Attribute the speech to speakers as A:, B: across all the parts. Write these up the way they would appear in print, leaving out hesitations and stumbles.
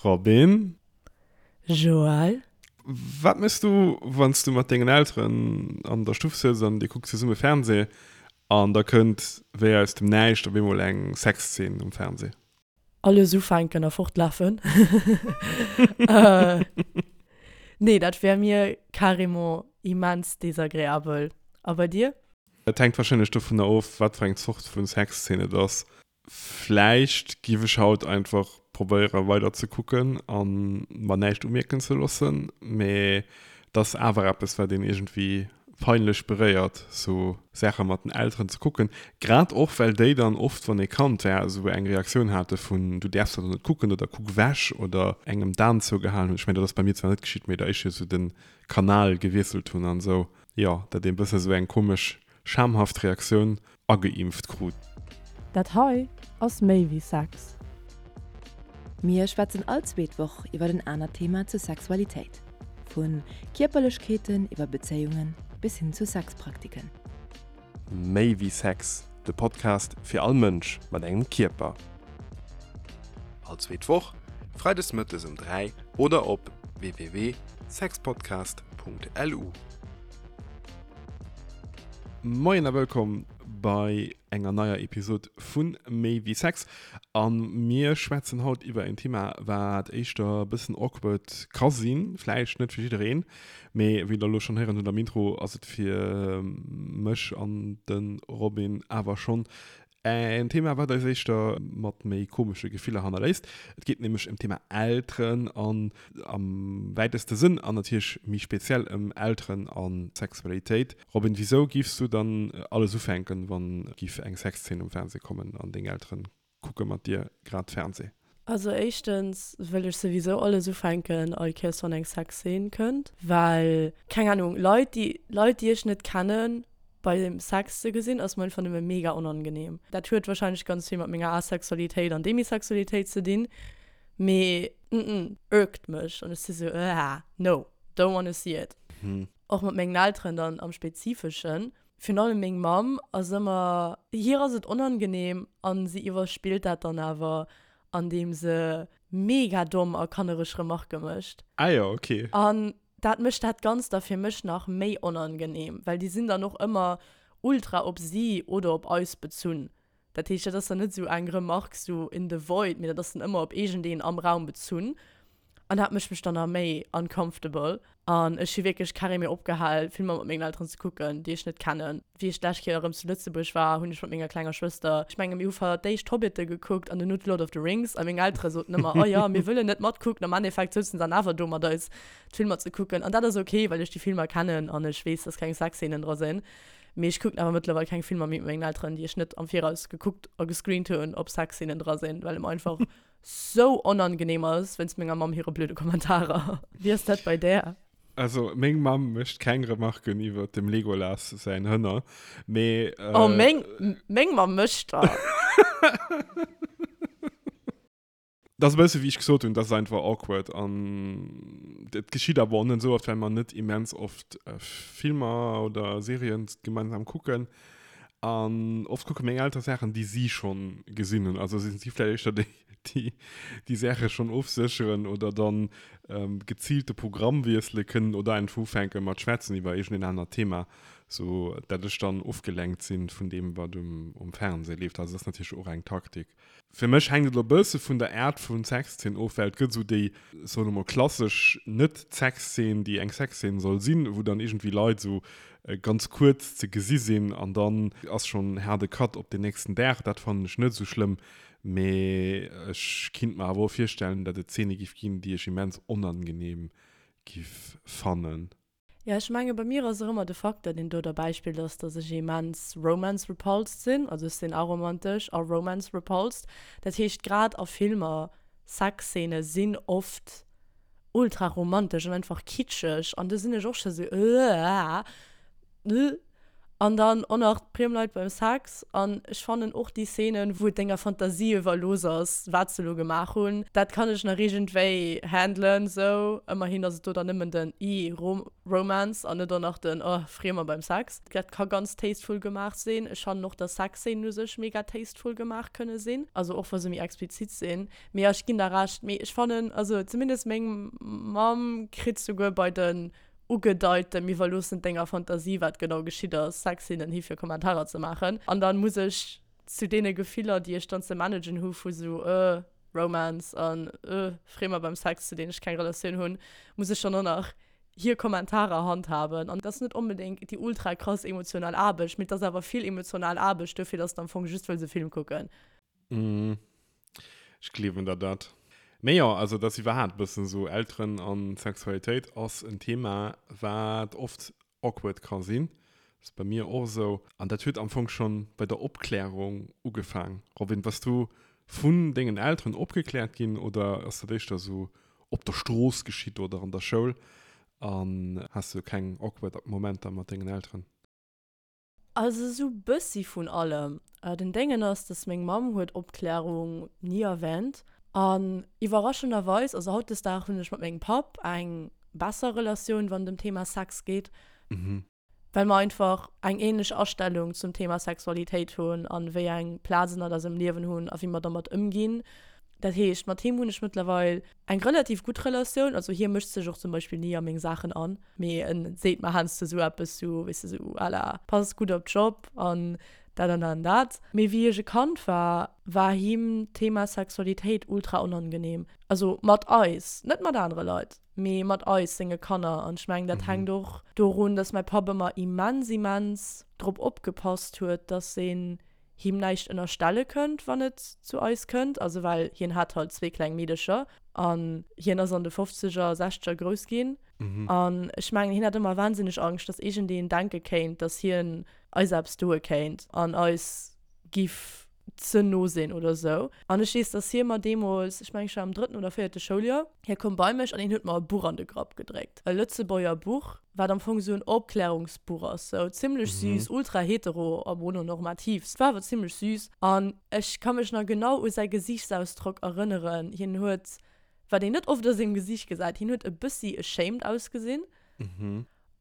A: Robin.
B: Joël.
A: Wat méchs du, wann s du mat dengen Elteren an der Stuff sëtz an dir kuckt zesumme Fernseh an da kënnt wéi aus dem Näischt op eemol eng Sexzeen um Fernseh?
B: Alles ufänken a fortlafen. Nee, dat wär mir carrément immens desagreabel. A bei dir?
A: Et hänkt wahrscheinlech dovunner of, wat fir eng Zort vu Sexzeen et ass. Vläicht giff ech haut einfach probéieren weider ze kucken an mer näischt umierken ze loossen, mee et ass awer eppes wat een iergendwéi peinlech beréiert sou Saache mat den Elteren ze kucken, grad och well déi dann oft wann ee Kand war esou eng Reaktioun hate vun du däerfs dat net kucken oder kuck ewech oder engem d'An zougehalen hunn. Ech mengen dat ass bei mir zwar net geschitt, mee der éischter esou de Kanal gewiesselt hunn an esou, jo dat ee bësse sou eng komesch schamhaft Reaktioun ageimpft krut.
B: Dat hei ass méi wéi Sex.
C: Mir schwätzen all zweet Woch iwwer en anert Thema zur Sexualitéit. Vu Kierperlechkeeten iwwer Bezéiungen bis hin zu Sexpraktiken.
A: Méi wéi Sex, de Podcast fir all Mënsch mat engem Kierper. All zweet Woch, freides mëttes um 3 oder op www.sexpodcast.lu. Moien a wëllkomm bei enger neier Episod vu Méi wéi Sex. A mir schwätzen haut iwwer en Thema, wat éischter e bëssen awkward ka sinn, vläicht net fir jiddereen, mee wéi der elo schonn héieren hutt am Intro, ass et fir mech an de Robin awer schonn En Thema, wat eis éischter mat méi komesche Gefiller hannerléisst. Et geet nämlech ëm d'Thema Elteren an am wäiteste Sënn an natierlech méi speziell ëm Elteren a Sexualitéit. Robin, wisou giffs du dann alles ufänken, wann giff eng Sexzeen um Fernseh kommen an deng Elteren kucke mat dir grad Fernseh?
B: Also éischtens wëll ech souwisou alles ufänken all Kéiers wann eng Sexzeen kënnt, well, keng Ahnung, Leit déi Leit déi ech net kennen beim Sex ze gesinn ass mer einfach nëmme mega onangenehm. Dat huet wahrscheinlech ganz vill mat menger Asexualitéit an Demisexualitéit ze dinn, mee mm irkt mech an ech si sou ëh no, don't wanna see it. Och mat mengen Elteren dann am spezifeschen. Virun allem meng Mamm ass ëmmer, hir ass et onangenehm an si iwwerspillt dat dann awer andeem se mega domm a kannereg Remarke mécht.
A: Ah jo, ok.
B: An dat mécht dat Ganzt da fir mech nach méi onangenehm, well déi sinn dann och ëmmer ultra op si oder op eis bezunn. Dat heescht, dat ass dann net esou eng Remark sou in the void, mee dat ass dann ëmmer op iergendeen am Raum bezunn. An dat mécht mech dann nach méi uncomfortable. An ech hu wierklech carrément opgehal, Filmer mat mengen Elteren ze kucken, déi ech net kennen. Wéi ech d'lescht Kéier erëm zu Lëtzebuerg war, hunn ech mat menger klenger Schwëster, ech menge mir hu fir d'éischt Hobbite gekuckt an duerno d'Lord of the Rings. A meng Eltere soten ëmmer, oh jo, mir wëllen net matkucken. Am Endeffekt souzen se dann awer do mat eis d'Filmer ze kucken. An dat ass ok, well ech déi Filmer kennen an ech weess, dass keng Sexzeenen dra sinn. Mee ech kucken awer mëttlerweil keng Filmer méi mat mengen Elteren, déi ech net am Viraus gekuckt a gescreent hunn, ob Sexzeenen dra sinn, well et mer einfach sou onangenehm ass wéinst menger Mamm hire blöde Kommentarer. Wéi ass dat bei där?
A: Also meng Mamm mécht keng Remarken iwwer dem Legolas säin Hënner, mee.
B: Oh, meng, meng Mamm mécht der.
A: Dat ass e bësse wéi ech gesot hunn, dat ass einfach awkward an et geschitt awer och net esou oft, well mer net immens oft Filmer oder Serien gemeinsam kucken an oft kucke meng Eltere Saachen, déi si schonn gesinn hunn. Also sinn si vläicht éischter déi, déi déi Saache schonn ofsécheren oder dann geziilt de Programm wiessele kënnen oder einfach ufänke mat schwätzen iwwer iergendeen anert Thema, sou dat ech dann ofgelenkt sinn vun deem, wat um Fernseh leeft. Also dat ass natierlech och eng Taktik. Fir mech hänkt et elo e bësse vun der Aart vun Sexzeen of, well et gëtt esou déi, soen elo mol, klassesch Net-Sexzeen, déi eng Sexzeen soll sinn, wou dann iergendwéi Leit esou ganz kuerz ze gesi sinn an dann ass schonn haarde Cut op den nächsten Dag. Dat fannen ech net esou schlëmm, mee ech kinnt mer awer och virstellen, datt et Zeene giff ginn, déi ech immens onangenehm giff fannen.
B: Jo, ech menge bei mir ass och ëmmer de Facteur, deen do derbäi spillt, ass, dass ech immens romance-repulsed sinn. Also ech sinn aromantesch a romance-repulsed. Dat heescht, grad a Filmer, Sexzeene sinn oft ultra romantesch an einfach kitscheg an do sinn ech och scho sou, Ëh. An dann och nach d'Priem Leit beim Sex. An ech fannen och déi Szenen, wou et denger Fantasie iwwerlooss ass, wat se elo gemaach hunn, dat kann ech nach iergendwéi handelen sou. Ëmmerhin ass et do dann nëmmen den ih, Romance an net och nach den oh, Friemer beim Sex. Dat ka ganz tasteful gemaach sinn. Ech fannen och, dass Sexszenen u sech mega tasteful gemaach kënne sinn, also och wa se méi explizit sinn. Mee jo, ech ginn der Recht. Mee ech fannen, also zumindest meng Mamm kritt souguer bei den ugedeiten, mir iwwerloossen denger Fantasie wat genau geschitt ass, Sexszenen hi fir Kommentarer ze maachen. An dann muss ech zu deene Gefiller déi ech dann ze managen hu vu sou euh Romance an euh Friemer beim Sex zu deenen ech keng Relatioun hunn, muss ech dann och nach hir Kommentarer handhaben. An et ass net onbedéngt déi ultra krass emotional Aarbecht, mee et ass awer vill emotional Aarbecht dofir, dass de am Fong just wëlls e Film kucken.
A: Mm. Ech gleewen der dat. Mee jo, also dat ass iwwerhaapt e bëssen esou, Elteren an Sexualitéit ass en Thema, wat oft awkward ka sinn. Ass bei mir och esou. An dat huet am Fong schonn bei der Opklärung ugefaang. Robin, bass du vun dengen Elteren opgekläert ginn oder ass dat éischter esou op der Strooss geschitt oder an der Schoul? An has du keng awkward Momenter mat dengen Elteren?
B: Also esou bëssi vun allem. Den Déngen ass, dass meng Mamm huet Opklärung ni erwähnt. An iwwerraschenderweis, also hautdesdaags hunn ech mat mengem Papp eng besser Relatioun, wann et ëm Thema Sex geet. Well mer einfach eng ähnlech Astellung zum Thema Sexualitéit hunn an wéi eng Plaz en an eisem Liewen hunn a wéi mer dermat ëmginn. Dat heescht, mat him hunn ech mëttlerweil eng relativ gutt Relatioun. Also hie mëscht sech och zum Beispill ni a meng Saachen an, mee en seet mer heiansdo sou eppes sou, weess de, sou à la pass gutt op dech op an dat an dat an dat. Mee wéi ech e Kand war, war him d'Thema Sexualitéit ultra onangenehm. Also mat eis, net mat anere Leit, mee mat eis, senge Kanner. An ech mengen, dat hänkt och dorun, dass mäi Papp ëmmer immens, immens drop opgepasst huet, dass een him näischt ënnerstelle kënnt, wann et zu eis kënnt, also well hien hat halt zwee kleng Meedecher an hien ass an de Fofzeger, Sechzeger grouss ginn. An ech mengen, hien hat ëmmer wahnsinneg Angscht, dass iergendeen denke kéint, dass hien eis eppes doe kéint an eis giff ze no sinn oder esou. An ech weess, dass hie mer deemools, ech mengen, ech war am drëtten oder véierte Schouljoer, hie koum bei mech an hien huet mer e Buch an de Grapp gedréckt, e Lëtzebuerger Buch, wat am Fong esou en Opklärungsbuch ass, sou zimlech süß, ultra hetero a mononormativ, et war awer zimlech süß an ech ka mech nach genau u säi Gesiichtsausdrock erënneren, hien huet, wat een net oft a sengem Gesiicht gesäit, hien huet e bëssi ashamed ausgesinn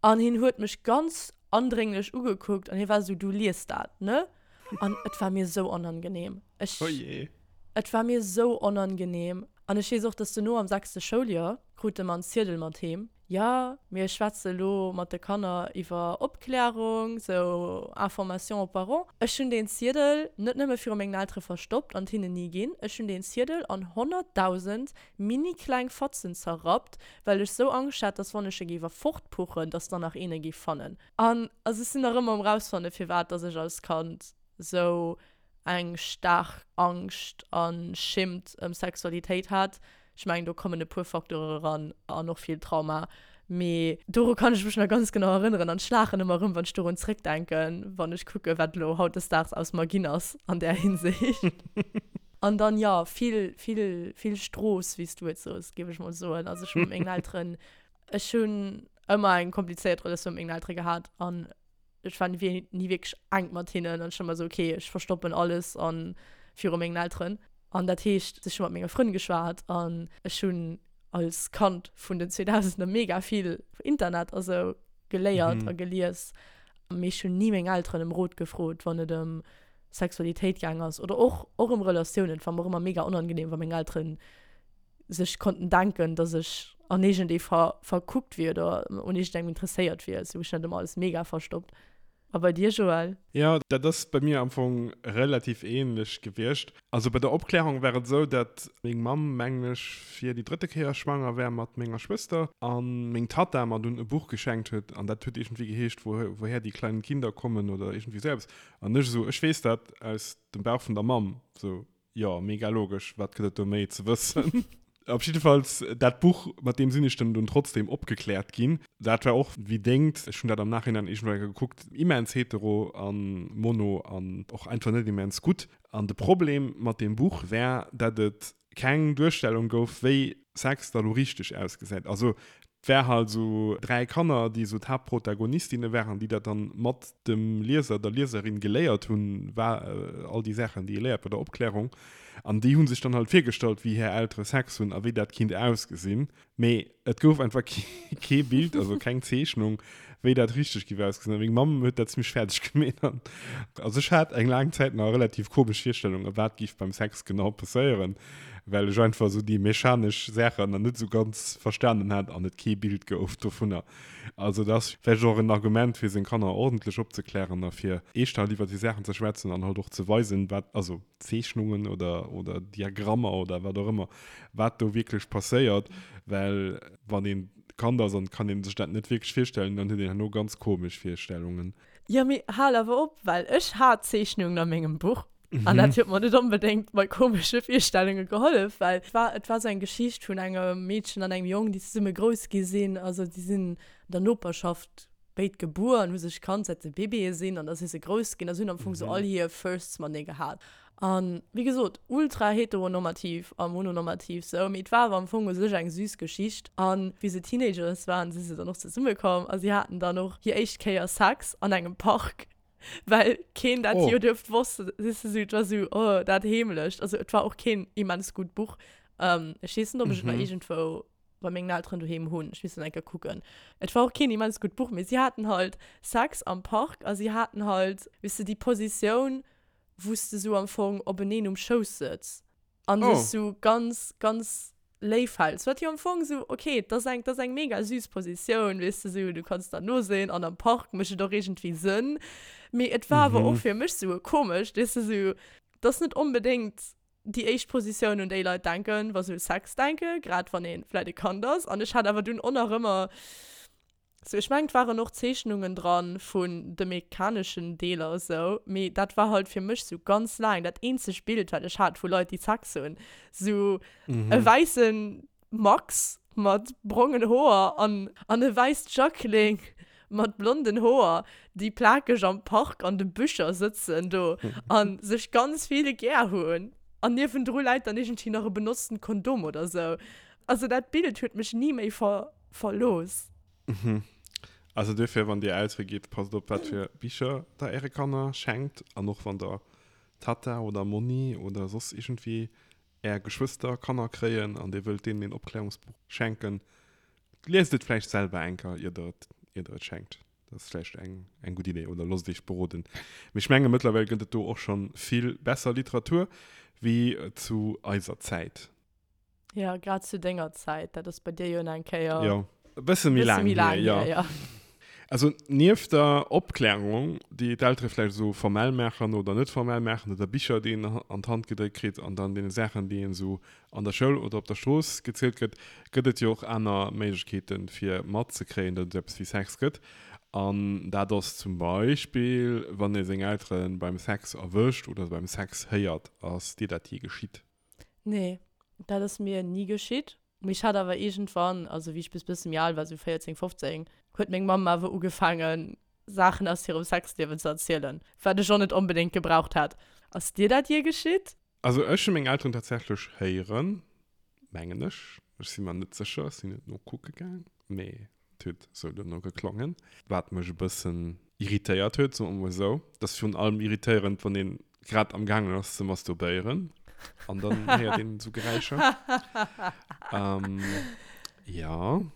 B: an hien huet mech ganz andrénglech ugekuckt an hie war esou, du liest dat, ne? An et war mir esou onangenehm, ech, et war mir esou onangenehm an ech weess och, dass duerno am sechste Schouljoer krute mer en Ziedel mat heem, Jo, mir schwätze elo mat de Kanner iwwer Opklärung, sou Information aux parents. Ech hunn deen Ziedel net nëmme viru mengen Eltere verstoppt an et hinnen ni ginn, ech hunn deen Ziedel an 100.000 mini-kleng Fatzen zerrappt, well ech sou Angscht hat, dass wann ech e géif erfortpuchen, dass dann nach een e géif fannen. An also ech sinn nach ëmmer um rausfanne firwat dass ech als Kand sou eng staark Angscht a Schimmt ëm Sexualitéit hat. Ech mengen, do kommen e puer Facteure eran an och vill Trauma. Mee doru kann ech mech nach ganz genau erënneren an ech laachen ëmmer erëm, wann ech dorun zréckdenken, wann ech kucken, wat elo hautdesdaags aus mer ginn ass an där Hinsicht. An dann, jo, vill, vill, vill Strooss, wéi s du et soos, géif ech mol soen. Also ech hu mat mengen Elteren, ech hunn ëmmer eng komplizéiert Relatioun mat mengen Eltere gehat an ech war ni wierklech enk mat hinnen an ech war ëmmer esou, okay, ech verstoppen alles an viru mengen Elteren. An dat heescht, ech hu mat menge Frënn geschwat an ech hunn als Kand vun den 2000er mega vill Internet a sou geléiert a gelies. Mee ech hunn ni meng Elteren ëm Rot gefrot, wann et ëm Sexualitéit gaang ass oder och och ëm Relatiounen. Et war mer och ëmmer mega onangenehm, wa meng Elteren sech konnten denken, dass ech an iergendee ver verkuckt wier oder un iergendengem interesséiert wier. Sou ech hunn dat ëmmer alles mega verstoppt. A bei dir, Joël?
A: Jo, dat ass bei mir am Fong relativ ähnlech gewiescht. Also bei der Opklärung war et esou, dat meng Mamm, mengen ech, fir déi drëtte Kéier schwanger war mat menger Schwëster a meng Tatta mer dunn e Buch geschenkt huet an dat huet iergendwéi geheescht Woher die kleinen Kinder kommen oder iergendwéi esou eppes. An ech esou, ech weess dat aus dem Bauch vun der Mamm, sou. Jo, mega logesch, wat gëtt et do méi ze wëssen? Op jiddefalls, dat Buch, mat deem sinn ech dann dunn trotzdem opgekläert ginn. Dat war och wéi dengt, ech hunn dat am Nachhinein iergendwou eng Kéier gekuckt, immens hetero an mono an och einfach net immens gutt. An de Problem mat deem Buch war, dat et keng Duerstellung gouf, wéi Sex da lo richteg ausgesäit. Also. War halt esou 3 Kanner, déi esou d'Haaptprotagonistinne waren, déi dat dann mat dem Lieser, der Lieserin geléiert hunn, war all déi Saachen, déi ee léiert bei der Opklärung. An déi hu sech dann halt virgestallt, wéi hir Eltere Sex hunn a wéi dat kinnt ausgesinn. Mee et gouf einfach kee Bild, also keng Zeechnung, wéi dat richteg giff ausgesinn. A meng Mamm huet dat zimmlech fäerdeg gemeet. An also ech hat eng laang Zäit nach e relativ komesch Virstellung, wat giff beim Sex genau passéieren, well ech einfach esou déi mechanesch Saachen nach net esou ganz verstanen hat an et kee Bild gouf dovunner. Also dat ass vläicht och en Argument, fir seng Kanner ordentlech opzeklären a fir eeschter halt iwwer déi Saachen ze schwätzen an halt och ze weisen, wat, also Zeechnungen oder, oder Diagrammer oder wat och ëmmer, wat do wierklech passéiert, well wann een Kand ass an kann een sech dat net wierklech virstellen, dann huet een herno ganz komesch Virstellungen.
B: Jo, mee hal awer op, well ech hat Zeechnungen a mengem Buch an dat huet mer net onbedéngt bei komesche Virstellunge gehollef, well et war, et war sou eng Geschicht vun engem Meedchen an engem Jong, déi zesumme grouss gi sinn, also déi sinn an der Noperschaft béid gebuer an hu sech kannt säit se Babyë sinn an da si se grouss ginn a se hunn am Fong sou all hir Firsts matenee gehat. An wéi gesot, ultra heteronormativ a mononormativ sou, mee et war awer am Fong u sech eng süß Geschicht. An wéi se Teenagers waren, si se dann och zesumme komm a si haten dann och hir éischt Kéier Sex an engem Park, well keen dat jo duerft wosst, weess de sou, et war sou, oh, dat heemlecht. Also et war och keen immens gutt Buch. Ech weess net, ob ech et nach iergendwou bei mengen Elteren doheem hunn. Ech misst dann eng Kéier kucken. Et war och keen immens gutt Buch, mee si haten halt Sex am Park a si haten halt, weess de, déi Positioun, wou s de sou am Fong openeen um Schouss sëtz an dech sou ganz, ganz léif häls. Wat jo am Fong sou, ok, et ass eng, et ass eng mega süß Positioun, weess de, sou, du kanns der no sinn an am Park mécht et och iergendwéi Sënn. Mee et war awer och fir mech sou e komescht, weess de, sou, et ass net onbedéngt déi éischt Positioun, un déi Leit denken, wa se u Sex denken, grad wann ee vläit e Kand ass. An ech hat awer dunn och nach ëmmer sou, ech mengen, et waren och Zeechnungen dran vun de mechaneschen Deeler esou, mee dat war halt fir mech sou ganz laang dat eenzegt Bild, wat ech hat vu Leit, déi Sex hunn, sou e wäisse Max mat brongen Hoer an an e wäisst Jacqueline mat blonden Hoer, déi plakeg am Park an de Büscher sëtzen do an sech ganz vill gär hunn. An niewendru läit dann iergendwéi nach e benotzten Kondom oder sou. Also dat Bild huet mech ni méi ver verlooss.
A: Mhm. Also duerfir, wann dir Eltere gitt, passt op wat fir Bicher der äre Kanner schenkt an och wann der Tatta oder Monni oder soss iergendwéi Är Geschwëster Kanner kréien an Dir wëllt deenen een Opklärungsbuch schenken, liest et vläicht selwer eng Kéier, ier Der et, ier Der et schenkt. Dat ass vläicht eng, eng gutt Idee. Oder loosst Iech beroden. Mee ech menge mëttlerweil gëtt et do och scho vill besser Literatur wéi zu eiser Zäit.
B: Jo, grad zu denger Zäit. Dat ass bei dir jo nach eng Kéier.
A: Jo, e bësse méi laang hier, jo.
B: Jo.
A: Also nieft der Opklärung, déi d'Eltere vläicht esou formell maachen oder net formell maachen, oder Bicher, déi een an d'Hand gedréckt kritt an dann deene Saachen, déi een esou an der Schoul oder op der Strooss gezielt gëtt, gëtt et jo och aner Méiglechkeeten, fir matzekréien, datt et esou eppes wéi Sex gëtt. An dat ass zum Beispill, wann ee seng Eltere beim Sex erwëscht oder beim Sex héiert. Ass dir dat jee geschitt?
B: Nee, dat ass mir ni geschitt. Mee ech hat awer iergendwann, also wéi ech bis bësse méi al war, sou 14, 15, huet meng Mamm awer ugefaangen, Saachen aus hirem Sexliewen ze erzielen, wat ech och net onbedéngt gebraucht hätt. Ass dir dat jee geschitt?
A: Also ech hu meng Elteren tatsächlech héieren, mengen ech, ech si mer net sécher, ech sinn net nokucke gaang, mee Et huet esou duerno geklongen, wat mech e bëssen irritéiert huet, soe mer mol esou. Et ass virun allem irritéierend, wann ee grad am gaangen ass ze masturbéieren an dann héiert een esou Geräischer. Jo,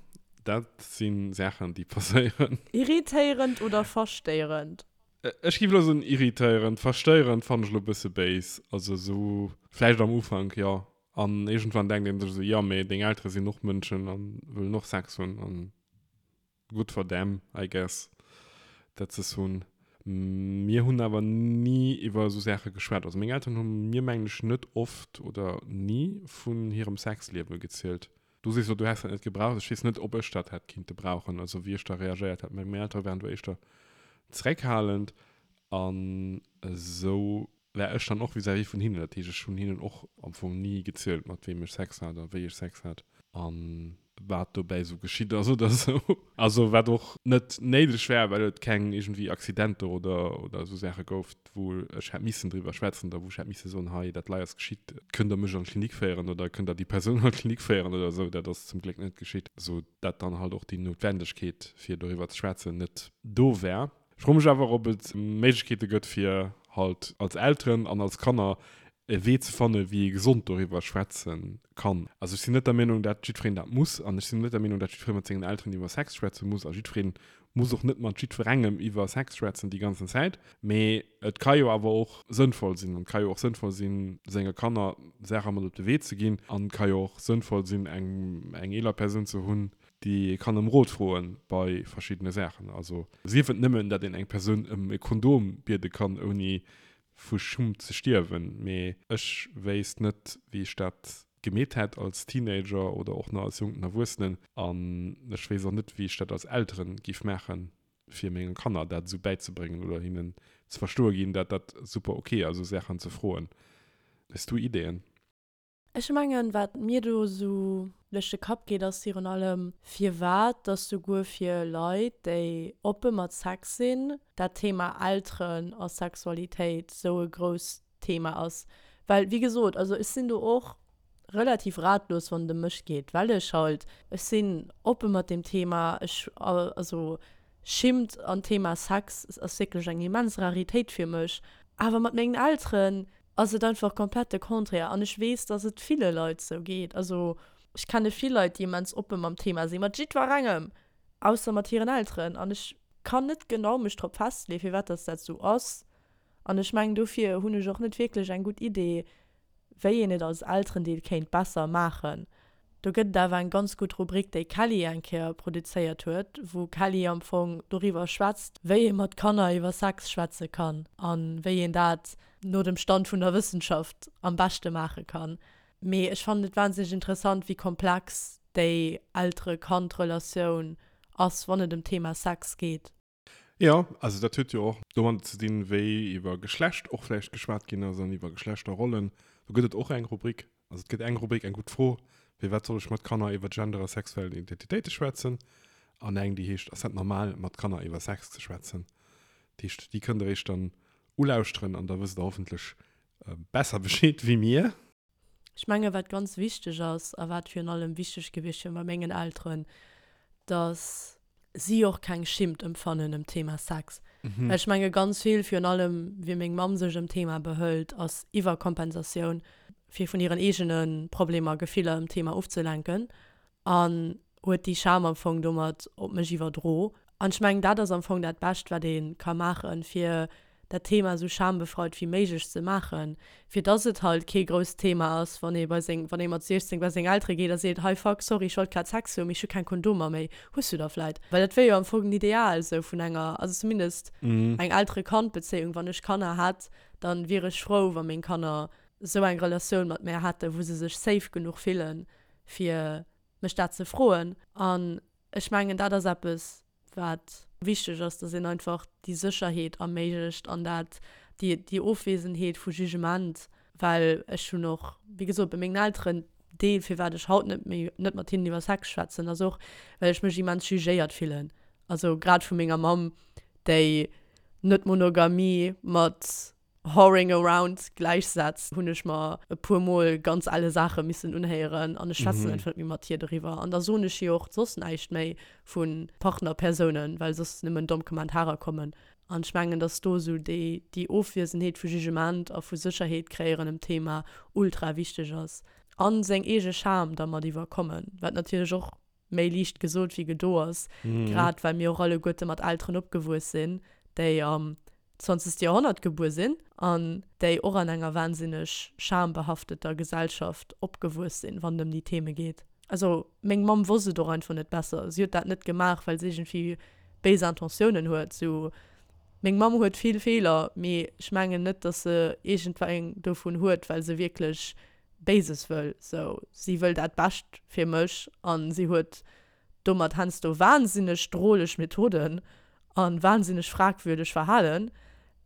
A: dat si Saachen, déi passéieren.
B: Irritéierend oder verstéierend?
A: Ech géif elo soen irritéierend. Verstéierend fannen ech elo e bësse béis. Also esou vläicht am Ufank, jo. An iergendwann denkt een sech esou, jo mee deng Eltere sinn och Mënschen an wëllen och Sex hunn an good for them I guess dat se es hunn. Mir hunn awer ni iwwer esou Saache geschwat. Also meng Elteren hu mir mengen ech net oft oder ni vun hirem Sexliewe gezielt. Du sees elo du häss dat net gebraucht. Ech weess net ob ech dat hätt kinnte brauchen, also wéi ech da reagéiert hätt. Meng Eltere waren do éischter zeréckhalend an esou war ech dann och vis-à-vis vun hinnen. Dat heescht, ech hunn hinnen och am Fong ni gezielt, mat weem ech Sex hat a wéi ech Sex hat. A. wat dobäi esou geschitt ass oder esou. Also wat och net néideg war, well et keng iergendwéi Accidenter oder oder esou Saache gouf, wou ech hätt missen driwwer schwätzen oder wou ech hätt misse soen, hei dat lei ass geschitt, kënnt der mech an d'Klinik féieren oder kënnt der déi Persoun an d'Klinik féieren oder esou. Dat ass zum Gléck net geschitt, sou dat dann halt och déi Noutwendegkeet fir doriwwer ze schwätzen net do war. Ech froe mech awer, ob et Méiglechkeete gëtt, fir halt als Elteren an als Kanner e Wee ze fannen, wéi ee gesond doriwwer schwätze kann. Also ech sinn net der Meenung, dat jiddwereen dat muss an ech sinn net der Meenung, dat jiddweree mat sengen Elteren iwwer Sex schwätze muss a jiddweree muss och net mat jiddwerengem iwwer Sex schwätzen déi ganzen Zäit. Mee et ka jo awer och sënnvoll sinn an et ka jo och sënnvoll sinn, senge Kanner Saache mat op de Wee ze ginn an et ka jo och sënnvoll sinn, eng eng eeler Persoun ze hunn, déi ee kann ëm Rot froe bei verschiddene Saachen. Also sief et nëmmen, datt een eng Persoun ëm e Kondom biede kann, ouni vu Schummt ze stierwen. Mee ech wéisst net, wéi ech dat gemeet hätt als Teenager oder och nach als jonken Erwuessenen. An ech wéisst och net, wéi ech dat als Eltere giff maachen, fir menge Kanner dat esou bäizebréngen oder hinnen ze verstoe ginn, dat dat super ok ass, esou Saachen ze froen. Hues du Ideeën?
B: Ech mengen, wat mir do esou duerch de Kapp geet, ass virun allem, firwat dass souguer fir Leit, déi oppe mat Sex sinn, dat Thema Elteren a Sexualitéit esou e grousst Thema ass. Well, wéi gesot, also ech sinn do och relativ ratlos, wann et ëm mech geet, well ech halt, ech sinn oppe mat deem Thema, ech, also Schimmt an d'Thema Sex ass wierklech eng immens Raritéit fir mech. Awer mat mengen Elteren ass et einfach komplett de Contraire an ech weess, dass et ville Leit sou geet. Also ech kenne vill Leit, déi immens oppe mam Thema sinn, mat jiddwerengem, ausser mat hiren Elteren. An ech kann net genau mech drop festleeën, firwat dass dat sou ass. An ech mengen, dofir hunn ech och net wierklech eng gutt Idee, wéi een et als Elterendeel kéint besser maachen. Do gëtt et awer eng ganz gutt Rubrik, déi Kelly eng Kéier produzéiert huet, wou Kelly am Fong doriwwer schwätzt, wéi ee mat Kanner iwwer Sex schwätze kann a wéi een dat no dem Stand vun der Wëssenschaft am beschte maache kann. Mee ech fannen et wahnsinneg interessant, wéi komplex déi Eltere-Kand-Relatioun ass, wann et ëm d'Thema Sex geet.
A: Jo, also dat huet jo och domadder ze dinn, wéi iwwer Geschlecht och vläicht geschwat ginn ass an iwwer Geschlechterrollen. Do gëtt et och eng Rubrik. Also et gëtt eng Rubrik, eng gutt Fro, Firwat soll ech mat Kanner iwwer Gender a sexuell Identitéite schwätzen? An eng, déi heescht, Ass dat normal, mat Kanner iwwer Sex ze schwätzen? Dat heescht, déi kënnt der iech dann ulauschteren an da wësst der hoffentlech besser Bescheed wéi mir.
B: Ech menge wat ganz wichteg ass a wat virun allem wichteg gewiescht wier bei mengen Elteren, datt si och keng Schimmt empfannen ëm d'Thema Sex. Well ech menge ganz vill, virun allem wéi meng Mamm sech ëm d'Thema behëlt, ass Iwwerkompensatioun, fir vun hiren eegene Problemer, Gefiller ëm d'Thema ofzelenken. An huet déi Scham am Fong domat op mech iwwerdro. An ech mengen, dat ass am Fong dat Bescht, wat ee ka maachen, fir dat Thema esou schambefreit wéi méiglech ze maachen, fir dass et halt kee grousst Thema ass, wann ee bei seng, wann ee mat 16 bei seng Eltere geet a seet, hei fuck, sorry, ech wollt grad Sex hunn, mee ech hu keng Kondomer méi, hues du der vläit? Well dat wier jo am Fong den Ideal esou vun enger, also zumindest eng Eltere-Kand-Bezéiung. Wann ech Kanner hätt, dann wier ech frou, wa meng Kanner esou eng Relatioun mat mär hätten, wou se sech safe genuch fillen, fir mech dat ze froen. An ech mengen, dat ass eppes, wat wichteg ass, dass een einfach déi Sécherheet erméiglecht an dat, déi, déi Ofwesenheet vu Jugement, well ech hunn och, wéi gesot, bei mengen Elteren, Deel, firwat ech haut net méi, net mat hinnen iwwer Sex schwätzen, ass och, well ech mech immens jugéiert fillen. Also grad vu menger Mamm, déi Net-Monogamie mat Whoring around gläichsetzt, hunn ech mer e puer Mol ganz elle Saache missen unhéieren an ech schwätzen einfach net méi mat hir doriwwer. An da soen ech hir och soss näischt méi vu Partnerpersounen, well soss nëmmen domm Kommentarer kommen. An ech mengen, dass do esou déi, déi Ofwiesenheet vu Jugement a vu Sécherheet kréieren ëm d'Thema ultra wichteg ass. A seng eege Scham da mat iwwerkommen, wat natierlech och méi liicht gesot wéi gedo ass, grad well mir och alleguerte mat Elteren opgewuess sinn, déi am zwanzegste Joerhonnert gebuer sinn an déi och an enger wahnsinneg schambehafteter Gesellschaft opgewuess sinn, wann et ëm déi Theme geet. Also meng Mamm wosst et och einfach net besser. Si huet dat net gemaach, well se iergendwéi béis Intentiounen huet. Sou, meng Mamm huet vill Feeler, mee ech mengen net, datt se iergendweng dovun huet, well se wierklech Béises wëll. Sou, si wëll dat Bescht fir mech an si huet domat heiansdo wahnsinneg droleg Methoden a wahnsinneg fragwürdeg Verhalen,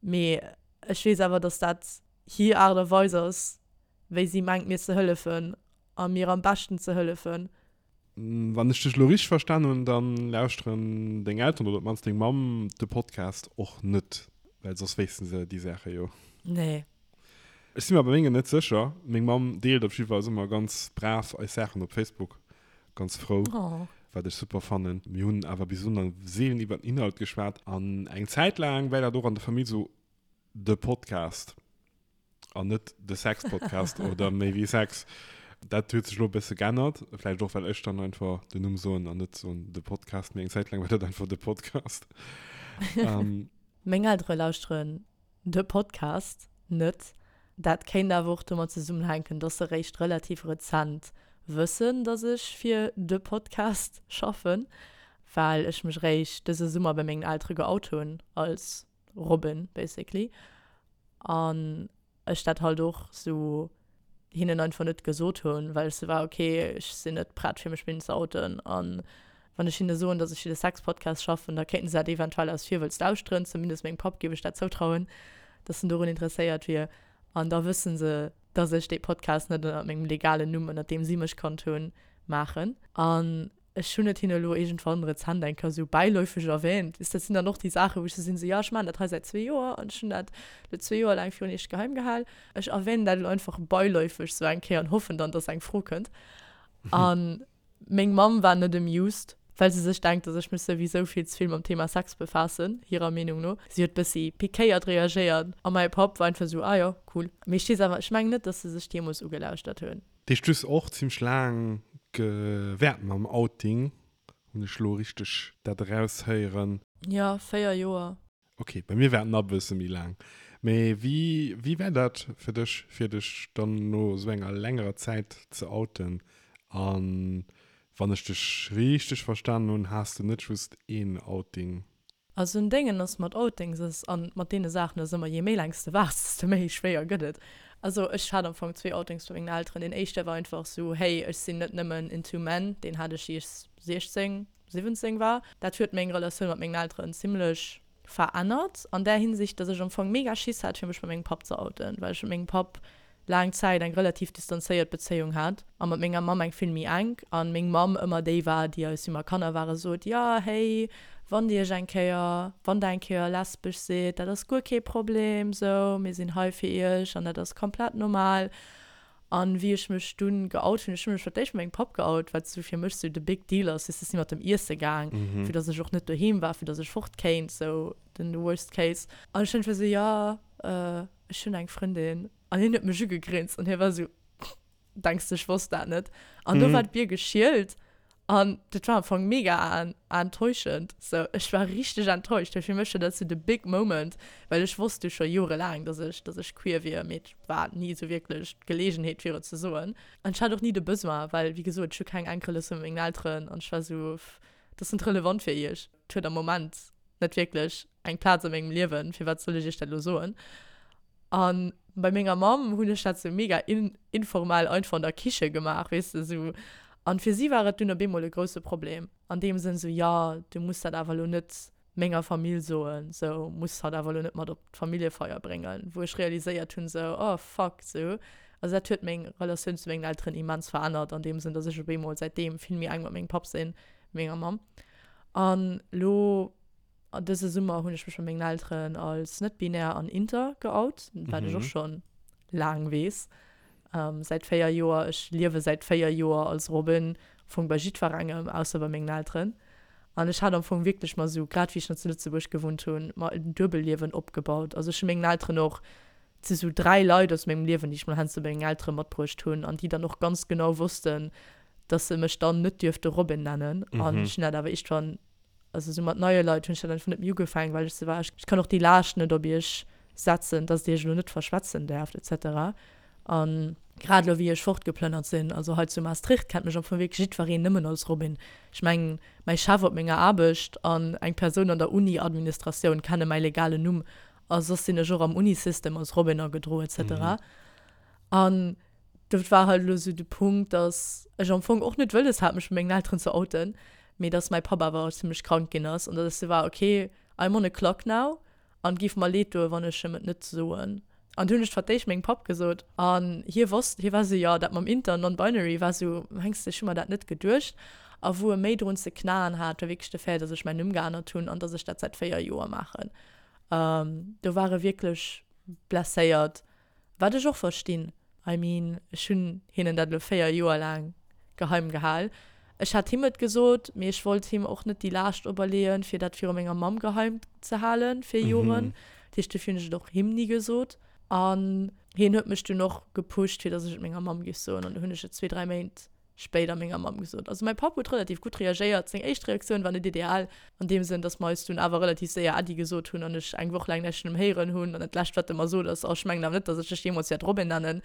B: mee ech weess awer, dass dat hir Aart a Weis ass, wéi si mengt mir ze hëllefen a mir am beschten ze hëllefen.
A: Wann ech dech elo richteg verstan hunn, dann lauschteren deng Elteren oder op d'mannst deng Mamm de Podcast och net, well soss wéissten se déi Saache jo.
B: Nee.
A: Ech si mer bei mengen net sécher. Meng Mamm deelt op jiddwer Fall ëmmer ganz brav eis Saachen op Facebook. Ganz frou, wat ech super fannen. Mir hunn awer bis elo nach seelen iwwer den Inhalt geschwat. An eng Zäit laang war dat och an der Famill sou de Podcast an net de Sex-Podcast oder méi wéi Sex. Dat huet sech elo e bësse geännert, vläicht och well ech dann einfach den Numm soen an net soen de Podcast. Mee eng Zäit laang war dat einfach de Podcast.
B: Meng Eltere lauschteren de Podcast net. Dat kéint awer och domat zesummenhänken, dass se réischt relativ rezent wëssen, dass ech fir de Podcast schaffen, well ech mech réischt dëse Summer bei mengen Eltere geout hunn als Robin basically. An ech dat halt och sou hinnen einfach net gesot hunn, well ech sou war, ok, ech sinn net prett fir mech bei hinnen ze outen. An wann ech hinne soen, dass ech fir de Sex-Podcast schaffen, da kéinten se dat eventuell aus Virwëlz lauschteren, zumindest mengem Papp géif ech dat zoutrauen, dass en dorun interesséiert wier. An da wësse se, dass ech dee Podcast net ënnert mengem legalen Numm, ënnert deem si mech kannt hunn, maachen. An Ech hunn et hinne elo iergendwann rezent eng Kéier esou bäiläufeg erwähnt. Weess, dat sinn dann och déi Saachen, wou ech sou sinn, esou, jo, ech maachen dat hei säit zwee Joer an ech hunn dat elo zwee Joer laang virun iech geheim gehal. Ech erwähnen dat elo einfach beiläufeg sou eng Kéier an hoffen dann, dass eng Fro kënnt. A meng Mamm war net amused, well se sech denkt, dass ech mech souwisou vill ze vill mam Thema Sex befaassen, hirer Meenung no. Si huet bëssi pikéiert reagéiert a mäi Papp war einfach esou, ah jo, cool. Mee ech weess awer, ech mengen net, dass se sech deemools ugelauschtert hunn.
A: Deech du hues och zimmlech laang gewäert mam Outing, hunn ech lo richteg dat eraushéieren?
B: Jo, 4 Joer.
A: Ok, bei mir war et nach e bësse méi laang. Mee wéi, wéi war dat fir dech, fir dech dann no esou enger längerer Zäit ze outen? A wann ech dech richteg verstanen hunn, has de net just een Outing
B: Also en Déngen ass mat Outings ass an mat deene Saachen ass ëmmer, je méi laang s de waarts, desto méi schwéier gëtt et. Also ech hat am Fong zwee Outings bei mengen Elteren. Deen éischte war einfach sou, hey ech sinn net nëmmen into men, deen hat ech wéi ech 16, 17 war. Dat huet meng Relatioun mat mengen Elteren zimlech verännert an där Hinsicht, dass ech am Fong mega Schiss hat fir mech bei mengem Papp ze outen, well ech mat mengem Papp laang Zäit eng relativ distanzéiert Bezéiung hat a mat menger Mamm eng vill méi enk an meng Mamm ëmmer déi war, déi eis, wéi mer Kanner ware sot, jo hey, wann dir iech eng Kéier, wann der eng Kéier lesbesch sidd, dat ass guer kee Problem, sou, mir sinn hei fir iech an dat ass komplett normal. An wéi ech mech dunn geout hunn, ech hu mech fir d'éischt mat mengem Papp geout, wat sou fir mech sou de big deal ass, weess de, si mat em iesse gaang, fir dass ech och net doheem war, fir dass ech fort kéint, sou den worst case. An ech hunn einfach sou, jo, ech hunn eng Frëndin. An hien huet mech ugegrinst an hie war esou, Denks de, ech wosst dat net? An do war d'Bier geschielt an dat war am Fong mega enttäuschend. Sou, ech war richteg enttäuscht, well fir mech war dat sou de big moment, well ech wosst jo scho jorelaang, dass ech, dass ech queer wier, mee et war ni esou wierklech d'Geleegenheet, fir et ze soen. An ech hat och ni de Besoin, well, wéi gesot, ech hu keng enk Relatioun mat mengen Elteren an ech war esou, Dat ass net relevant fir iech. Et huet am Moment net wierklech eng Plaz a mengem Liewen, firwat soll ech iech dat elo soen? A bei menger Mamm hunn ech dat sou mega informell einfach an der Kiche gemaach, weess de, sou. An fir si war et dunn op eemol e grousse Problem, an deem Sënn sou, jo, du muss dat awer elo net menger Famill soen, sou, muss hatt awer elo net mat op d'Familljefeier bréngen, wou ech realiséiert hunn, sou, oh fuck, sou. Also dat huet meng Relatioun zu mengen Elteren immens verännert, an deem Sënn, datt ech op eemol säitdeem vill méi enk mat mengem Papp sinn, wéi menger Mamm. An elo dëse Summer hunn ech mech bei mengen Elteren als net-binär an inter geout, wat ech och schonn laang weess, säit 4 Joer. Ech liewe säit 4 Joer als Robin, am Fong bei jiddwerengem, ausser bei mengen Elteren. An ech hat am Fong wierklech mer esou, grad wéi ech nach zu Lëtzebuerg gewunnt hunn, mer en Duebelliewen opgebaut. Also ech hu mengen Elteren och, et si sou 3 Leit aus mengem Liewen, déi ech mol heiansdo bei mengen Eltere matbruecht hunn an déi dann och ganz genau wossten, dass se mech dann net dierfte Robin nennen. An ech hunn dat awer iergendwann Also sou mat neie Leit hunn ech dat einfach net méi ugefaangen, well ech sou war, ech kann och déi Laascht net op iech setzen, dass dir iech elo net verschwätzen däerft et cetera. An grad elo wéi ech fortgeplënnert sinn, also hei zu Maastricht kennt mech am Fong wierklech jiddwereen nëmmen als Robin. Ech mengen, mäi Chef op menger Aarbecht an eng Persoun an der Uni-Administratioun kenne mäi legalen Numm a soss sinn ech och am Uni-System als Robin agedroen et cetera. An Dat war halt elo sou de Punkt, dass ech am Fong och net wëlles hat, mech bei mengen Elteren ze outen, mee dass mäi Papp awer zimmlech krank ginn ass an dass ech sou war, okay, I'm on a clock now an et géif mer leed doen, wann ech em et net soen. An du hunn ech fir d'éischt mengem Papp gesot an hie wosst, hie war esou, jo, dat mam Inter an Non-Binary war esou, mengs de, ech hu mer dat net geduecht. A wou e méi drun ze knaen hat, war wierklech de Fait, dass ech mäin Numm geännert hunn an dass ech dat säit 4 Joer maachen. Do war e wierklech blesséiert, wat ech och verstinn. I mean, ech hunn hinnen dat elo 4 Joer laang geheim gehal. Ech hat him et gesot, mee ech wollt him och net déi Laascht operleeën, fir dat viru menger Mamm geheim ze halen fir Joren. Dat heescht, dofir hunn ech et och him ni gesot. An hien huet mech dunn och gepusht, fir dass ech et menger Mamm géif soen. An du hunn ech et zwee, dräi Méint spéider menger Mamm gesot. Also mäi Papp huet relativ gutt reagéiert. Seng éischt Reaktioun war net ideal, an deem Sënn, dass mer eis dunn awer relativ séier Äddi gesot hunn an ech eng Woch laang näischt vun em héieren hunn. An dat lescht, wat e mer sot, ass, Oh, ech mengen awer net, dass ech dech jeemools wäert Robin nennen.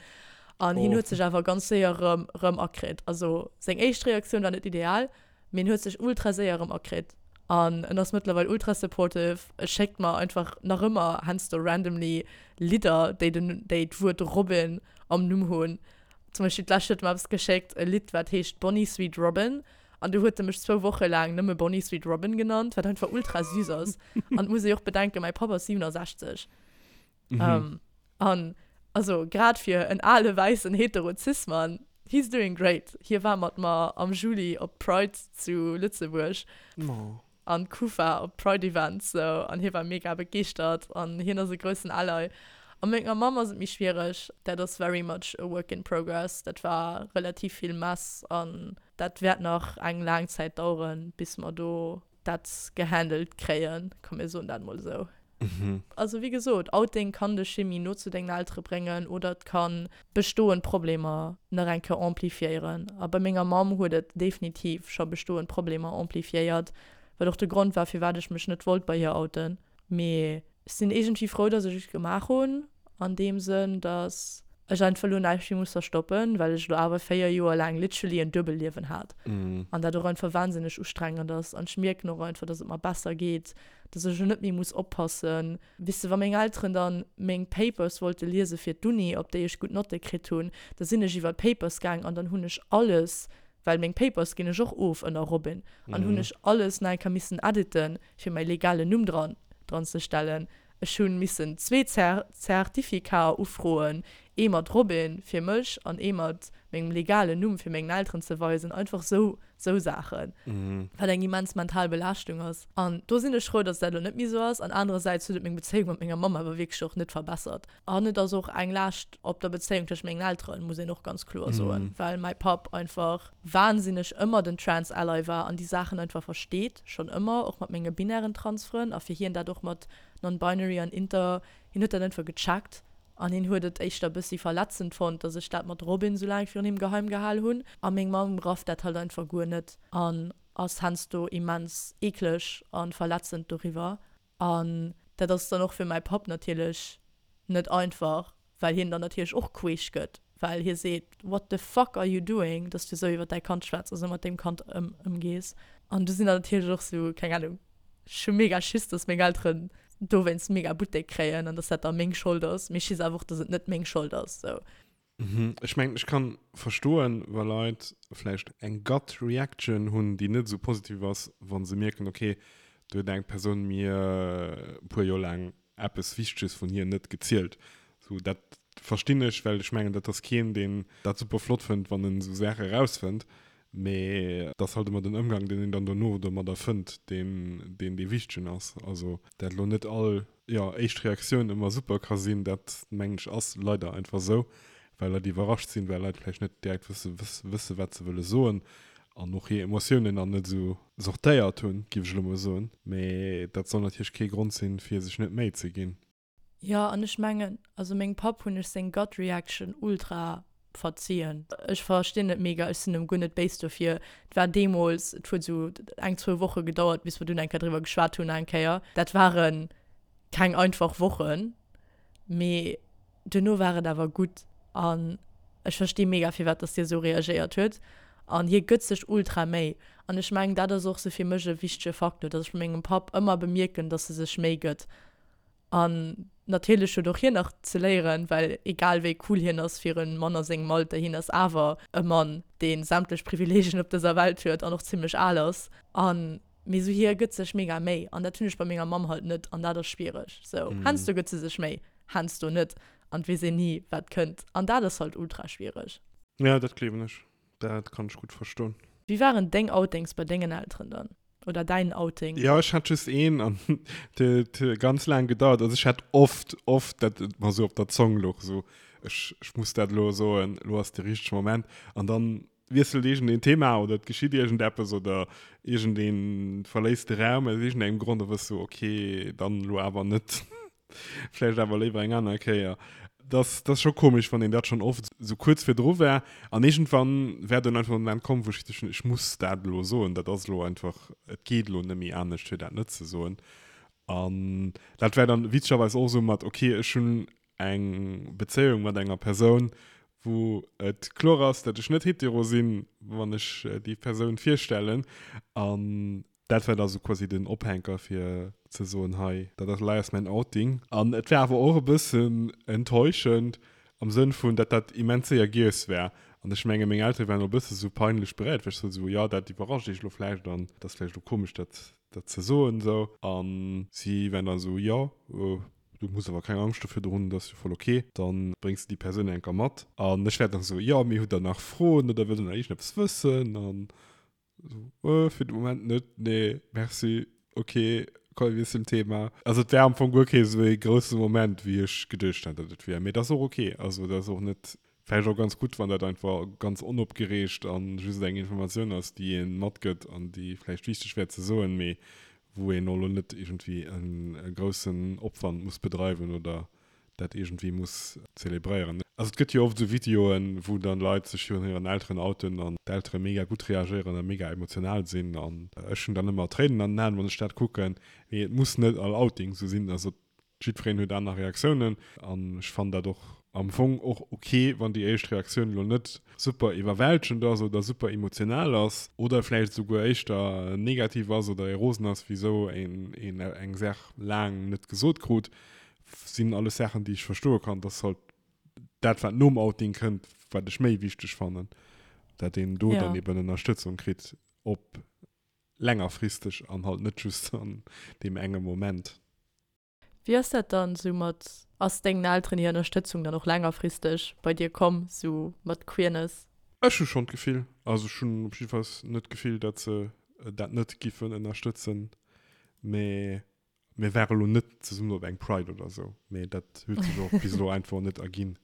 B: An hien huet sech awer ganz séier erëm, erëm akritt. Also seng éischt Reaktioun war net ideal, mee en huet sech ultra séier erëm akritt. An en ass mëttlerweil ultra supportive. E schéckt mer einfach nach ëmmer heiansdo randomly Lidder, déi den, déi d'Wuert Robin am Numm hunn. Zum Beispill d'lescht huet e mer eppes geschéckt, e Lidd wat heescht Bonnie Sweet Robin an du huet e mech zwou Woche laang nëmme Bonnie Sweet Robin genannt, wat einfach ultra süß ass. An et muss ee och bedenken, mäi Papp ass 67. Mhm. An also grad fir en ale wäissen hetero Cis-Mann, he's doing great. Hie war mat mer am Juli op d'Pride zu Lëtzebuerg.
A: Oh.
B: an Kufa op Pride Events sou an hie war mega begeeschtert an hien ass e groussen Ally. A menger Mamm ass et méi schwiereg, dat ass very much a work in progress, dat war relativ vill Mess an dat wäert nach eng laang Zäit daueren bis mer do dat gehandelt kréien, komm mir soen dat mol esou. Also wéi gesot, Outing kann dech méi no zu dengen Eltere bréngen oder et ka bestoend Problemer nach eng Kéier amplifiéieren. A bei menger Mamm huet et definitiv scho bestoend Problemer amplifiéiert, wat och de Grond war firwat ech mech net wollt bei hir outen. Mee ech sinn iergendwéi frou, dass ech et gemaach hunn, an deem Sënn, dass ech einfach elo näischt méi muss verstoppen, well ech elo awer 4 Joer laang literally en Duebelliewen hat an dat och einfach wahnsinneg ustrengend ass. An ech mierken och einfach, dass et mer besser geet, dass ech elo net méi muss oppassen. Weess de, wa meng Elteren dann meng Papers wollte liese fir d'Uni, op déi ech gutt Notte kritt hunn, da sinn ech iwwer d'Papers gaang an dann hunn ech alles, well meng Papers ginn ech och of ënner Robin, an hunn ech alles nach eng Kéier missen editen, fir mäi legalen Numm dran dran ze stellen. Ech hunn missen zwee Zertifikaer ufroen, ee mat Robin fir mech an ee mat mengem legalen Numm fir mengen Elteren ze weisen. Einfach sou sou Saachen, wat eng immens mental Belaaschtung ass. An do sinn ech frou, dass dat elo net méi sou ass. An anerersäits huet et meng Bezéiung mat menger Mamm awer wierklech och net verbessert. An et ass och eng Laascht op der Bezéiung tëscht mengen Elteren, muss een och ganz kloer soen, well mäi Papp einfach wahnsinneg ëmmer den Trans-Ally war an déi Saachen einfach versteet, schonn ëmmer, och mat menge binären Trans-Frënn a fir hien dat och mat non-binary an inter, hien huet dat einfach gecheckt an hien huet et éischter e bëssi verletzend fonnt, dass ech dat mat Robin sou laang virun him geheim gehal hunn a meng Mamm rafft dat halt einfach guer net an ass heiansdo immens eekleg a verletzend doriwwer. An dat ass dann och fir mäi Papp natierlech net einfach, well hien dann natierlech och queesch gëtt, well hie seet, What the fuck are you doing, dass du esou iwwer däi Kand schwätz a sou mat deem Kand ëmgees. An du sinn dann natierlech och sou, keng Ahnung, ech hu mega Schiss, dass meng Elteren dowéinst mega Buttek kréien an dass dat da meng Schold ass. Mee ech weess awer och, dass et net meng Schold ass, sou.
A: Ech mengen, ech kann verstoen, wa Leit vläicht eng Gut Reaction hunn, déi net esou positiv ass, wa se mierken, okay, do huet eng Persoun mir e puer Joer laang eppes Wichteges vun hir net gezielt. Sou, dat verstinn ech, well ech mengen, dat ass keen, deen dat super flott fënnt, wann en esou Saache erausfënnt. Mee et ass halt ëmmer den Ëmgang, deen een dann dono domadder fënnt, deen deen dee Wichtegen ass. Also, dat elo net all jo, éischt Reaktioun ëmmer super ka sinn, dat mengen ech ass leider einfach esou, well Leit iwwerrascht sinn, well Leit vläicht net direkt wësse wësse wat se wëlle soen an och hir Emotiounen nach net esou sortéiert hunn, géif ech elo mol soen. Mee dat soll natierlech kee Grond sinn, fir sech net Méi ze ginn.
B: Jo, an ech mengen, also mengem Papp hunn ech seng Gut Reaction ultra verzien. Ech verstinn et mega, ech sinn em guer net béis dofir. Et war deemools, et huet esou eng, zwou Woche gedauert, bis mer dunn eng Kéier driwwer geschwat hunn eng Kéier. Dat ware keng einfach Wochen, mee duerno war et awer gutt. An ech versti mega, firwat dass hie esou reagéiert huet. An hie gëtt sech ultra Méi. An ech mengen, dat ass och sou fir mech e wichtege Faktor, dass ech bei mengem Papp ëmmer bemierken, dass e sech Méi gëtt. An natierlech huet och hien nach ze léieren, well egal wéi cool hien ass fir e Mann a sengem Alter, hien ass awer e Mann, dee sämtlech Privileegien op dëser Welt huet an och zimmlech al ass. An mee sou hie gëtt sech mega Méi an dat hunn ech bei menger Mamm halt net an dat ass schwiereg. Sou heiansdo gëtt se sech Méi, heiansdo net. An et weess een ni, wat kënnt. An dat ass halt ultra schwiereg.
A: Ja, dat gleewen ech. Dat kann ech gutt verstoen.
B: Wéi waren deng Outings bei dengen Elteren dann? Oder däin Outing?
A: Jo, ech hat just een an et huet ganz laang gedauert. Also ech hat oft, oft, dat et mer esou op der Zong louch, esou ech, ech muss dat elo soen, elo ass de richtege Moment. An dann wiesselt iergendeen Thema oder et geschitt iergendeppes oder iergendee verléisst de Raum aus iergendengem Grond, da wëss du, okay, dann elo awer net. Vläicht awer léiwer eng aner Kéier. Dat ass scho komesch, wann een dat schonn oft esou kuerz virdru war. An iergendwann war dunn einfach den Moment komm, wou ech geduecht hunn, ech muss dat elo soen. Dat ass elo einfach, et geet elo net méi anescht, fir dat net ze soen. An dat war dann witzegerweis och esou mat, okay, ech hunn eng Bezéiung mat enger Persoun, wou et kloer ass, datt ech net hetero sinn, wann ech déi Persoun virstellen. An Dat war da sou quasi den Ophänker fir ze soen, hei, dat ass elei ass mäin Outing. An et war awer och e bëssen enttäuschend am Sënn vun, datt dat immens séier giess war. An ech menge meng Eltere waren och e bësse sou peinlech beréiert, well ech sot esou, jo, dat iwwerrascht iech elo vläicht an et ass vläicht elo komesch dat dat ze soen esou. A si waren da sou, jo, du muss awer keng Angscht dofir hunn, dat ass jo voll ok, da bréngs de déi Persoun enker mat. An ech war dann esou, jo, mee hutt der nach Froen oder wëllt der nach iergendeppes wëssen? An So, äh, fir de Moment net, nee, merci, okay, komm, wir zum Thema. Also et wär am Fong guer kee sou ee grousse Moment, wéi ech geduecht hat, datt et wier. Mee dat ass och okay. Also dat ass och net, vläicht och ganz gutt, wann dat einfach ganz onopgereegt an just eng Informatioun ass, déi ee matgëtt an déi vläicht wichteg wär ze soen, mee wou een och elo net iergendwéi e groussen Opwand muss bedreiwen oder dat iergendwéi muss zelebréieren. Also et gëtt jo oft esou Videoen, wou dann Leit sech virun hiren Elteren outen an d'Eltere mega gutt reagéieren a mega emotional sinn an ech hunn dann ëmmer Tréinen an den Aen, wann ech dat kucken. Mee et muss net all Outing esou sinn. Also jiddwereen huet aner Reaktiounen an ech fannen dat och am Fong och ok, wann déi éischt Reaktioun elo net super iwwerwältegend ass oder super emotional ass oder vläicht esouguer éischter negativ ass oder ee rosen ass, wisou een eng Saach laang net gesot krut. Sinn alles Saachen, déi ech verstoe kann. Dat ass halt dat, wat nom Outing kënnt, wat ech méi wichteg fannen, dat een do dann eben Ënnerstëtzung kritt op längerfristeg an halt net just an deem enge Moment.
B: Wéi ass dat dann sou mat, ass dengen Elteren hir Ënnerstëtzung dann och längerfristeg bei dir komm, sou mat Queerness?
A: Ech hu schonn d'Gefill, also ech hunn op jiddefalls net d'Gefill, dat se dat net giffen ënnerstëtzen, mä Mir ware lo net zesummen op eng Pride oder sou, mee dat huet sech och bis elo einfach net erginn.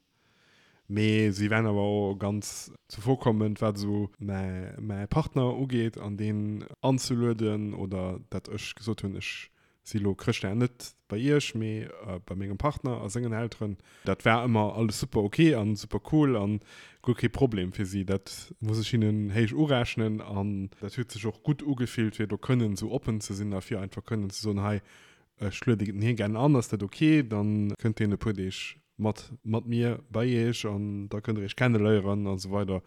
A: Mee si waren awer och ganz zuvorkommend, wat esou mäi mäi Partner ugeet an deen anzelueden oder dat ech gesot hunn, ech si lo Chrëschtdag net bei iech, mee bei mengem Partner a sengen Elteren. Dat war ëmmer alles super ok an super cool an guer kee Problem fir si. Dat muss ech hinnen héich urechnen an dat huet sech och gutt ugefillt fir do kënnen esou oppen ze sinn a fir einfach kënnen ze soen, hei ech lueden hie gären an, ass dat ok? Dann kënnt hien e puer Deeg mat mat mir bei iech an da kënnt der iech kenneléieren a sou weider.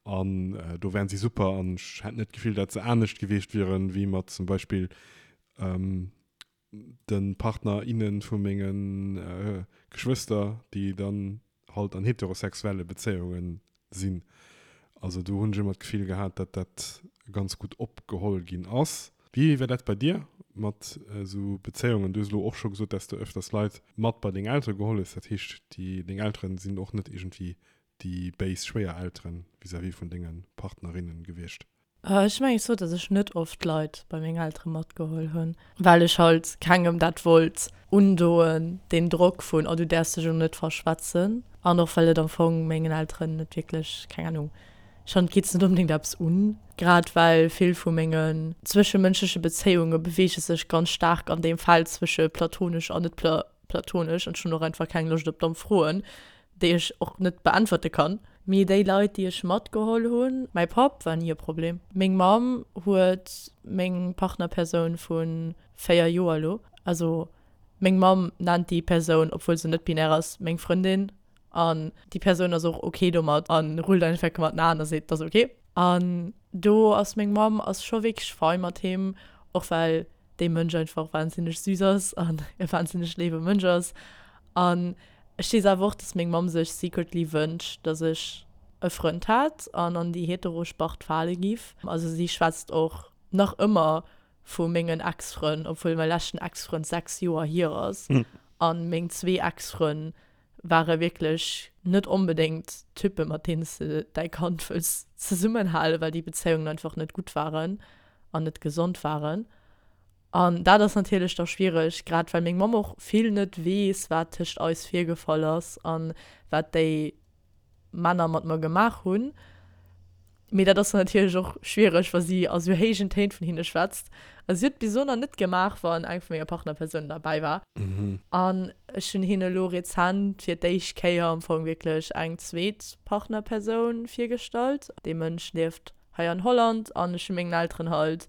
A: An do waren si super an ech hat net d'Gefill, dat se anescht gewiescht wieren, wéi mat zum Beispill de Partner, innen vu menge Geschwëster, déi dann halt an heterosexuelle Bezéiunge sinn. Also do hunn ech ëmmer d'Gefill gehat, datt dat ganz gutt opgeholl ginn ass. Wéi war dat bei dir mat esou Bezéiungen? Du hues elo och scho gesot, datt s de öfters Leit mat bei deng Eltere geholl hues. Dat heescht, déi deng Eltere sinn och net iergendwéi déi béis Schwéiereltere vis-à-vis vun denge Partnerinnen gewiescht?
B: Ech mengen ech sot dass ech net oft Leit bei meng Eltere matgeholl hunn, well ech halt kengem dat wollt undoen, deen Drock vun oh du däerfs dech elo net verschwätzen an och well et am Fong mengen Elteren net wierklech, keng Ahnung, ech fannen et geet se net onbedéngt eppes un, grad well vill vu mengen zwëschemënschleche Bezéiunge beweege sech ganz staark an deem Feld zwësche platonesch an net platonesch an ech hunn och einfach keng Loscht op domm Froen. déi ech och net beäntwerte kann. Mee déi Leit, déi ech matgeholl hunn, mäi Papp war ni e Problem. Meng Mamm huet meng Partnerpersoun vu 4 Joer elo, also meng Mamm nennt déi Persoun, obwuel se net binär ass, meng Frëndin an déi Persoun ass och ok domat a rullt einfach mat den Aen a seet, dat ass ok. An do ass meng Mamm ass scho wierklech fei mat him, och well dee Mënsch einfach wahnsinneg süß ass an e wahnsinneg léiwe Mënsch ass. An ech weess awer och, dass meng Mamm sech secretly wënscht, dass ech e Frënd hätt an an déi hetero Spart fale giff. Also si schwätzt och nach ëmmer vu mengen Ex-Frënn, obwuel mäi leschten Ex-Frënd 6 Joer hier ass an meng zwee Ex-Frënn. Ware wierklech net onbedéngt Typpe mat deenen s de däi Kand wëlls zesummenhalen, well déi Bezéiungen einfach net gutt waren an net gesond waren. An dat ass natierlech da schwiereg, grad well meng Mamm och vill net weess, wat tëscht eis virgefall ass an wat déi Männer mat mer gemaach hunn. Mee dat ass dann natierlech och schwiereg, wa si a sou héijen Téin vun hinne schwätzt. A si huet et bis elo nach net gemaach, wann eng vu menger Partnerpersounen derbäi war. An ech hunn hinne elo rezent fir d'éischt Kéier am Fong wierklech eng zweet Partnerpersoun virgestallt. Dee Mënsch lieft hei an Holland an ech hu mengen Elteren halt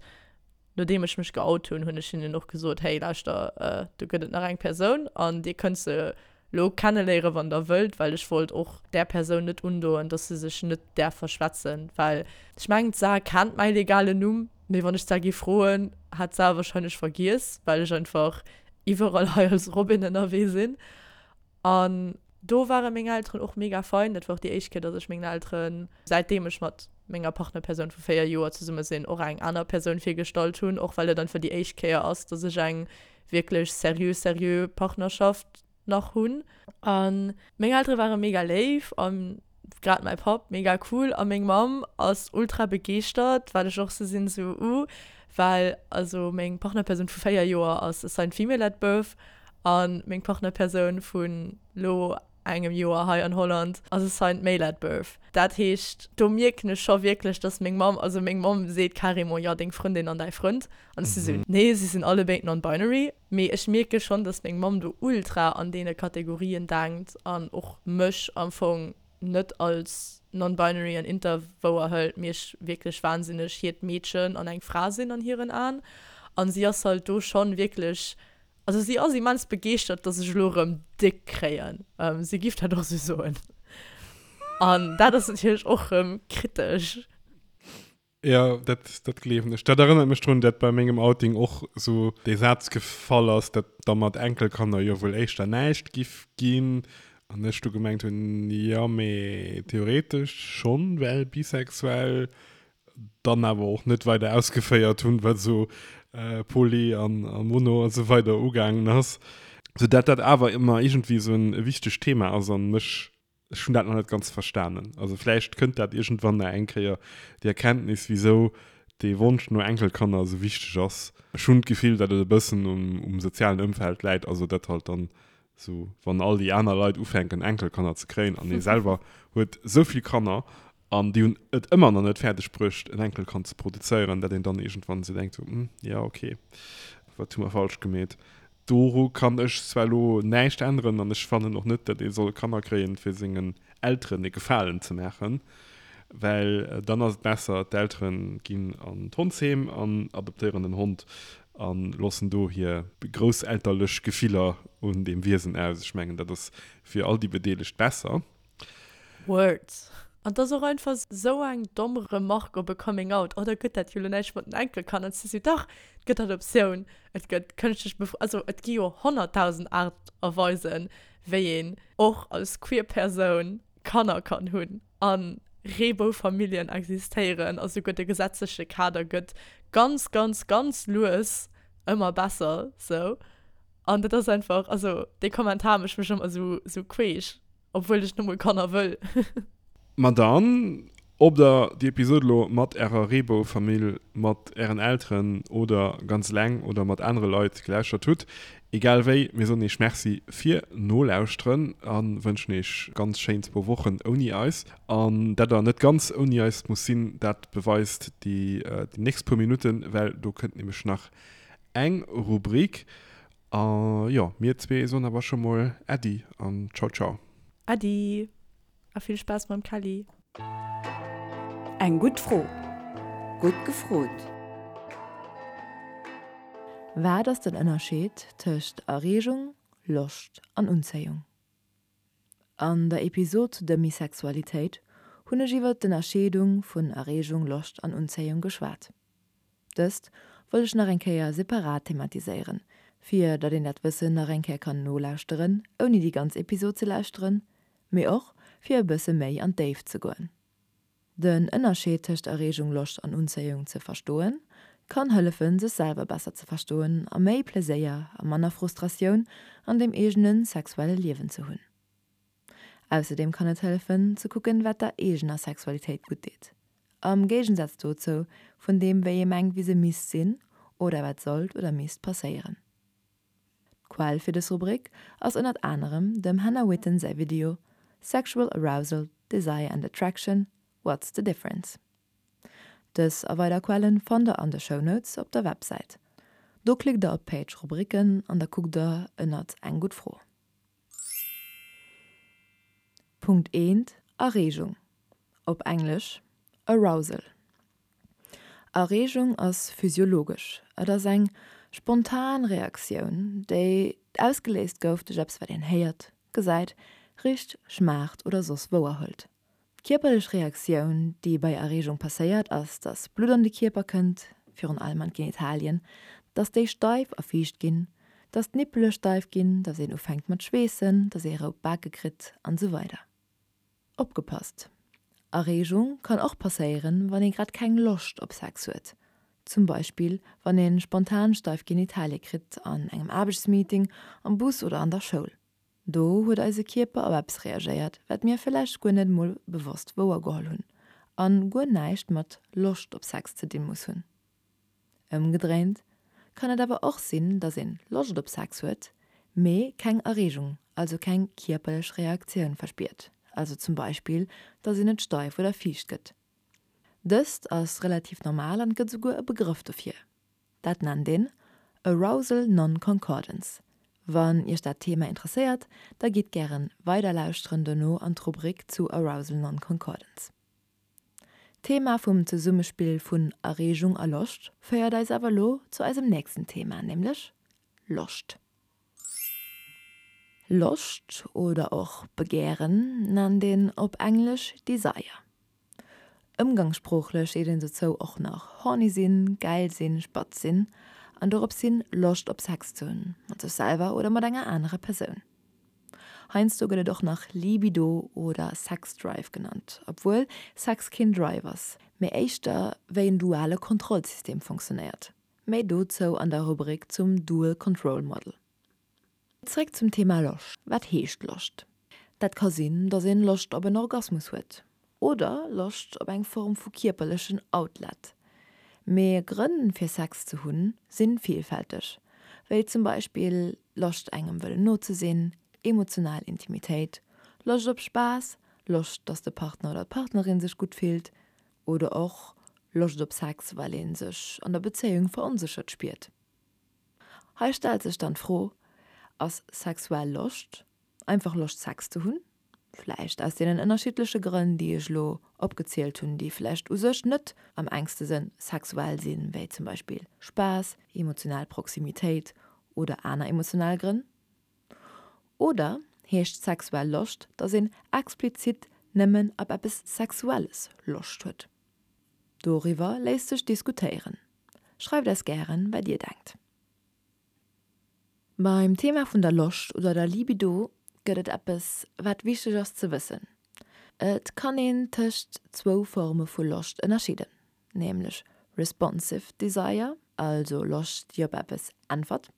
B: Nodeem ech mech geout hunn, hunn ech hinnen och gesot, Hey, lauschter, do gëtt et nach eng Persoun an dir kënnt se lo kenneléieren, wann der wëllt, well ech wollt och där Persoun net undoen, dass se sech net däerf verschwätzen, well ech mengen, d'Sar kennt mäi legalen Numm, mee wann ech d'Sar gi froen, hat d'Sar warscheinlech vergiess, well ech einfach iwwerall hei als Robin ënnerwee sinn. An do ware meng Elteren och mega fein. Dat war och déi éischt Kéier, dass ech mengen Elteren, säitdeem ech mat menger Partnerpersoun vu 4 Joer zesumme sinn, och eng aner Persoun virgestallt hunn. Och well et einfach déi éischt Kéier ass, dass ech eng wierklech seriö, seriö Partnerschaft nach hunn. A meng Eltere ware mega léif a grad mäi Papp mega cool a meng Mamm ass ultra begeeschtert, wat ech och sou sinn, sou uh, well also meng Partnerpersoun vu 4 Joer ass assigned female at birth a meng Partnerpersoun vun lo engem Joer hei an Holland ass assigned male at birth. Dat heescht do mierken ech scho wierklech, dass meng Mamm, also meng Mamm seet carrément, jo deng Frëndin an däi Frënd an ech si sou, nee si sinn allebéid non-binary. Mee ech mierke schonn, dass meng Mamm do ultra an deene Kategorien denkt an och mech am Fong net als non-binary an inter wouer hëlt, mee ech wierklech wahnsinneg hiert Meedchen an eng Fra sinn an hiren Aen. An si ass halt do schonn wierklech, also si ass immens begeeschtert, dass ech elo erëm déck kréien. Si giff dat och sou soen. An dat ass natierlech och erëm kritesch.
A: Jo, dat, dat gleewen ech. Dat erënnert mech drun, dat bei mengem Outing och sou dee Saz gefall ass, dat da mat Enkelkanner jo wuel éischter näischt giff ginn. An ech du gemengt hunn, jo, mee theoretesch schonn, well bisexuell. Dann awer och net weider ausgeféiert hunn, wat esou Poly an Mono a sou weider ugaangen ass. Sou dat dat awer ëmmer iergendwéi esou en wichtegt Thema ass an mech Ech hunn dat nach net ganz verstanen. Also vläicht kënnt dat iergendwann nach eng Kéier, déi Erkenntnis, wisou dee Wonsch no Enkelkanner esou wichteg ass. Ech hunn d'Gefill, datt et e bëssen um sozialen Ëmfeld läit, also datt halt dann esou, wann all déi aner Leit ufänken Enkelkanner ze kréien an ee selwer huet esou vill Kanner an déi hunn et ëmmer nach net fäerdeg bruecht en Enkelkand ze produzéieren, datt een dann iergendwann esou denkt, hm, jo okay, wat hu mer falsch gemeet? Doru kann ech zwar elo näischt änneren an ech fannen och net, datt ee soll Kanner kréien, fir sengen Elteren e Gefalen ze maachen, well dann ass et besser, d'Eltere ginn an d'Hondsheem an adoptéieren en Hond a loossen do hir grousselterlech Gefiller un deem Wiesen aus. Ech mengen, dat ass fir all déi Bedeelegt besser.
B: Words. An 't ass och einfach sou eng domm Remarque op e Coming Out, oh da gëtt dat jo lo näischt mat den Enkelkanner. An si sou, dach, et gëtt Adoptioun, et gëtt kënschtlech Befru-, also et gi jo 100.000 Aart a Weisen, wéi een och als queer Persoun Kanner kann hunn. A Reeboufamilljen existéieren a souguer de gesetzleche Kader gëtt ganz, ganz, ganz lues ëmmer besser sou. An dat ass einfach, also dee Kommentar mécht mech ëmmer sou, sou queesch. Obwuel ech nemol Kanner wëll.
A: Ma dann, ob der déi Episode lo mat ärer Reebou-Famill, mat ären Elteren oder ganz eleng oder mat anere Leit gelauschtert hutt, egal wéi, mir soen iech Merci fir Nolauschteren a wënschen iech ganz schéin zwou Wochen ouni eis. An dat der net ganz ouni eis muss sinn, dat beweist déi nächst puer Minutten, well do kënnt nämlech nach eng Rubrik. A jo, mir zwee soen awer scho mol Äddi an Ciao Ciao.
B: Äddi a vill Spaass mam Kelly.
C: Eng gutt Fro. Gutt gefrot. Wat ass den Ënnerscheed tëscht Erreegung, Loscht an Unzéiung? An der Episod zu Demisexualitéit hunn ech iwwer d'Ënnerscheedung vun Erreegung, Loscht an Unzéiung geschwat. Dëst wollt ech nach eng Kéier separat thematiséieren, fir datt een dat Wëssen nach eng Kéier kann nolauschteren, ouni déi ganz Episod ze lauschteren, mee och fir e bësse méi an d'Déift ze goen. Den Ënnerscheed tëscht Erreegung, Loscht an Unzéiung ze verstoen, kann hëllefen, sech selwer besser ze verstoen a méi Pleséier a manner Frustratioun an dem eegene sexuelle Liewen ze hunn. Ausserdeem kann et hëllefen, ze kucken, wat der eegener Sexualitéit gutt deet. Am Géigensaz dozou vun deem, wéi ee mengt, wéi se misst sinn oder wat sollt oder misst passéieren. D'Quell fir dës Rubrik ass ënnert anerem dem Hannah Witton säi Video Sexual Arousal, Desire and Attraction, What's the Difference? Dës a weider Quellen fannt der an de Shownotes op der Websäit. Do klickt der op d'Page Rubriken an da kuckt der ënnert Eng gutt Fro. Punkt eent, Erreegung, op Englesch Arousal. Erreegung ass physiologesch, et ass eng spontan Reaktioun, déi ausgeléist gouf duerch eppes wat een héiert, gesäit, richt, schmaacht oder soss wouerhëlt. D'kierperlech Reaktioun, déi bei Erreegung passéiert, ass, dass Blutt an de Kierper kënnt, virun allem an d'Genitalien, dass déi steif a fiicht ginn, dass d'Nippele steif ginn, dass een ufänkt mat schweessen, dass ee rout Bake kritt an esou weider. Opgepasst! Erreegung kann och passéieren, wann ee grad keng Loscht op Sex huet. Zum Beispill, wann ee spontan steif Genitalie kritt an engem Aarbechtsmeeting, am Bus oder an der Schoul. Do huet eise Kierper op eppes reagéiert, wat mir villäicht guer net mol bewosst wouergeholl hunn an guer näischt mat Loscht op Sex ze dinn muss hunn. Ëmgedréint kann et awer och sinn, dass een Loscht op Sex huet, mee keng Erreegung, also keng kierperlech Reaktioun verspiert, also zum Beispill, dass een net steif oder fiicht gëtt. Dëst ass relativ normal an et gëtt esouguer e Begrëff dofir. Dat nennt een Arousal Non-Concordance. Wann Iech dat Thema interesséiert, da gitt gären weider lauschteren dono an d'Rubrik zu Arousal Non-Concordance. D'Thema vum Zesummespill vun Erreegung a Loscht féiert eis awer elo zu eisem nächsten Thema, nämlech Loscht. Loscht oder och Begären nennt een op Englesch Desire. Ëmgangssproochlech seet een dozou och nach horny sinn, gäil sinn, spatz sinn an dorops hin Loscht op Sex ze hunn, mat sech selwer oder mat enger anerer Persoun. Heiansdo gëtt et och nach Libido oder Sexdrive genannt, obwuel Sex keen Drive ass, mee éischter wéi en duale Kontrollsystem funktionéiert. Méi dozou an der Rubrik zum Dual Control Model. Zréck zum Thema Loscht. Wat heescht Loscht? Dat ka sinn, dass een Loscht op en Orgasmus huet oder Loscht op eng Form vu kierperlechen Outlet. Mee Grënn fir Sex ze hunn sinn villfälteg, wéi zum Beispill Loscht engem wëllen no ze sinn, emotional Intimitéit, Loscht op Spaass, Loscht dass de Partner oder d'Partnerin sech gutt fillt oder och Loscht op Sex well een sech an der Bezéiung veronséchert spiert. Hei stellt sech dann d'Fro, Ass sexuell Loscht einfach Loscht Sex ze hunn? Vläicht aus deenen ënnerschiddleche Grënn, déi ech elo opgezielt hunn, déi vläicht u sech net am engste Sënn sexuell sinn, wéi zum Beispill Spaass, emotional Proximitéit oder aner emotional Grënn? Oder heescht sexuell Loscht, dass een explizit nëmmen op eppes Sexuelles Loscht huet? Doriwwer léisst sech diskutéieren. Schreift eis gären, wat dir denkt. Beim Thema vun der Loscht oder der Libido gëtt et eppes, wat wichteg ass ze wëssen. Et kann een tëscht zwou Forme vu Loscht ënnerscheeden, nämlech responsive desire, also Loscht déi op eppes äntwert,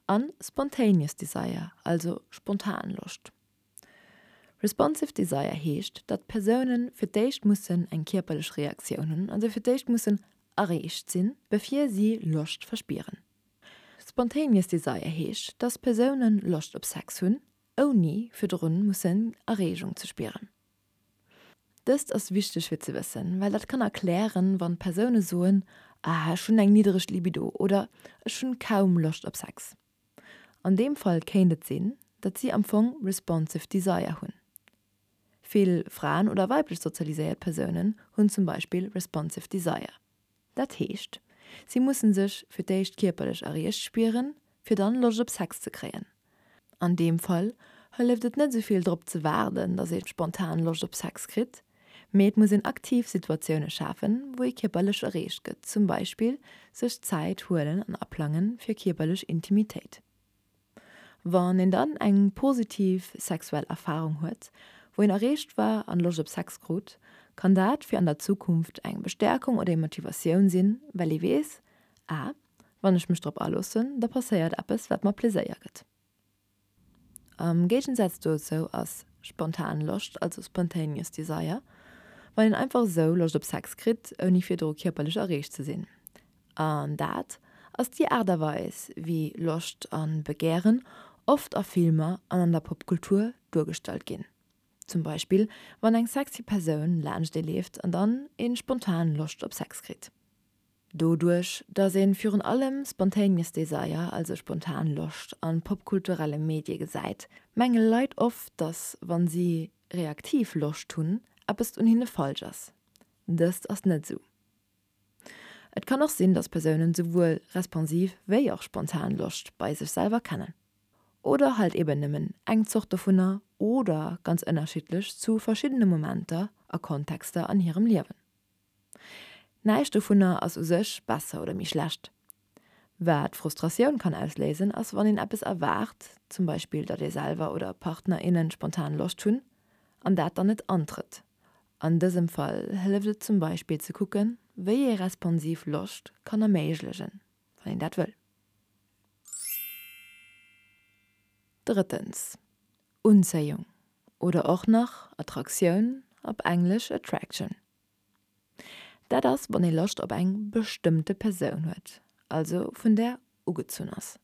C: an spontaneous desire, also spontan Loscht. Responsive Desire heescht, datt d'Persoune fir d'éischt mussen eng kierperlech Reaktioun hunn, also fir d'éischt mussen erreegt sinn, bevir si Loscht verspieren. Spontaneous Desire heescht, datt Persoune Loscht op Sex hunn, ouni virdrun mussen Erreegung ze spieren. Dëst ass wichteg fir ze wëssen, well dat kann erklären, wann Persoune soen, Ah, ech hunn eng niddereg Libido oder Ech hunn kaum Loscht op Sex. An deem Fall kéint et sinn, datt si am Fong responsive desire hunn. Vill Fraen oder weiblech sozialiséiert Persounen hunn zum Beispill responsive desire. Dat heescht, si musse sech fir d'éischt kierperlech erreegt spieren, fir dann Loscht op Sex ze kréien. An deem Fall hëlleft et net esou vill drop ze waarden, datt ee spontan Loscht op Sex kritt, Mee et muss een aktiv Situatioune schafen, wou ee kierperlech erreecht gëtt, zum Beispill sech Zäit huelen an aplange fir kierperlech Intimitéit. Wann een dann eng positiv sexuell Erfarung huet, wou een erreecht war an Loscht op Sex krut, kann dat fir an der Zukunft eng Bestäerkung oder eng Motivatioun sinn, well ee weess, Ah, wann ech mech drop aloossen, da passéiert eppes, wat mer Pleséier gëtt. Am Géigensaz dozou ass. Spontan Loscht, also spontaneous desire, wann een einfach esou Loscht op Sex kritt, ouni virdru kierperlech erreegt ze sinn. An dat ass déi Aart a Weis, wéi Loscht a Begären oft a Filmer an an der Popkultur duergestallt ginn. Zum Beispill wann eng sexy Persoun laanscht ee leeft an dann ee spontan Loscht op Sex kritt. Doduerch, dass een virun allem spontaneous desire, also spontan Loscht, an popkulturelle Medie gesäit, menge Leit oft, dass wann si reaktiv Loscht hunn, eppes un hinne falsch ass. Dëst ass net esou. Et kann och sinn, dass Persounen souwuel responsiv wéi och spontan Loscht bei sech selwer kennen. Oder halt eben nëmmen eng Zort dovunner oder ganz ënnerschiddlech zu verschiddene Momenter a Kontexter an hirem Liewen. Näischt dovunner ass u sech besser oder méi schlecht. Wat Frustratioun kann ausléisen, ass wann een eppes erwaart, zum Beispill datt ee selwer oder Partner, innen spontan Loscht hunn, an dat dann net antrëtt. An dësem Fall hëlleft et zum Beispill ze kucken, wéi ee responsiv Loscht kann erméiglegen, wann een dat wëll. Drëttens, Unzéiung oder och nach Attraktioun, op Englesch attraction. Dat ass, wann ee Loscht op eng bestëmmte Persoun huet, also vun där ugezunn ass.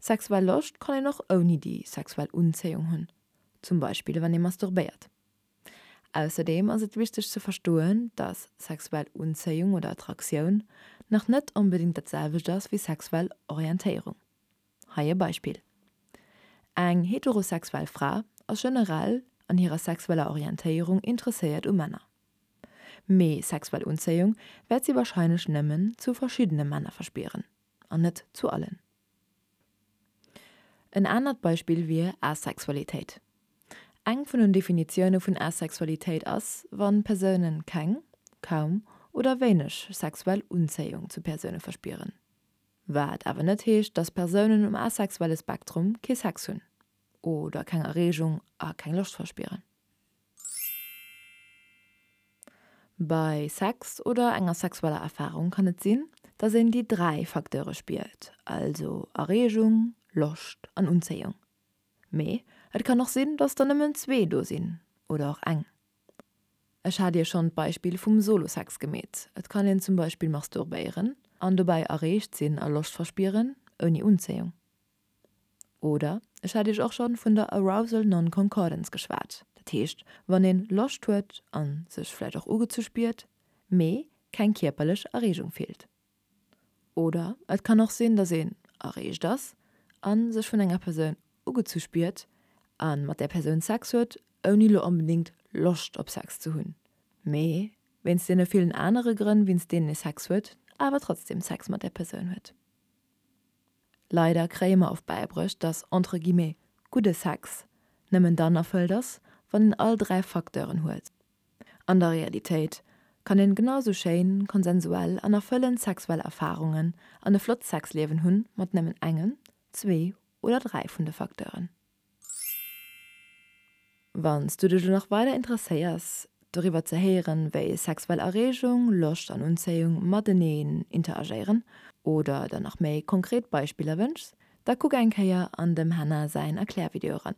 C: Sexuell Loscht kann een och ouni déi sexuell Unzéiung hunn, zum Beispill wann ee masturbéiert. Ausserdeem ass et wichteg ze verstoen, dass sexuell Unzéiung oder Attraktioun nach net onbedéngt dat selwecht ass wéi sexuell Orientéierung. Hei e Beispill, Eng heterosexuell Fra ass generell an hirer sexueller Orientéierung interesséiert u Männer. Mee sexuell Unzéiung wäert si warscheinlech nëmmen zu verschiddene Männer verspieren, an net zu allen. En anert Beispill wier Asexualitéit. Eng vun den Definitioune vun Asexualitéit ass, wann Persoune keng, kaum oder wéineg sexuell Unzéiung zu Persoune verspieren. Wat awer net heescht, dass Persounen um asexuelle Spektrum kee Sex hunn oder keng Erreegung a keng Loscht verspieren. Bei Sex oder enger sexueller Erfarung kann et sinn, dass een déi 3 Facteure spiert, also Erreegung, Loscht an Unzéiung. Mee et kann och sinn, dass der nëmmen zwee do sinn oder och eng. Ech hat Iech schonn d'Beispill vum Solo-Sex gemeet. Et kann een zum Beispill masturbéieren an dobäi erreegt sinn a Loscht verspieren, ouni Unzéiung. Oder ech hat Iech och schonn vun der Arousal Non-Concordance geschwat, dat heescht wann een Loscht huet an sech vläicht och ugezu spiert, mee keng kierperlech Erreegung fillt. Oder et kann och sinn, dass een erreegt ass a sech vun enger Persoun ugezu spiert a mat där Persoun Sex huet, ouni lo onbedéngt Loscht op Sex ze hunn, mee wéinst deene villen anere Grënn, wéinst deenen ee Sex huet, awer trotzdem Sex mat där Persoun huet. Leider kréie mer oft bäibruecht, dass entre guillemets gudde Sex nëmmen dann erfëllt ass, wann een all 3 Facteuren huet. An der Realitéit kann een genau sou schéin, konsensuell an erfëllend sexuell Erfarungen an e flott Sexliewen hunn mat nëmmen engem, zwee oder 3 vun de Facteuren. Wann s du dech elo nach weider interesséiers doriwwer ze héieren, wéi sexuell Erreegung, Loscht an Unzéiung mateneen interagéieren oder der nach méi konkret Beispiller wënschs, da kuck eng Kéier an dem Hannah säin Erklärvideo eran.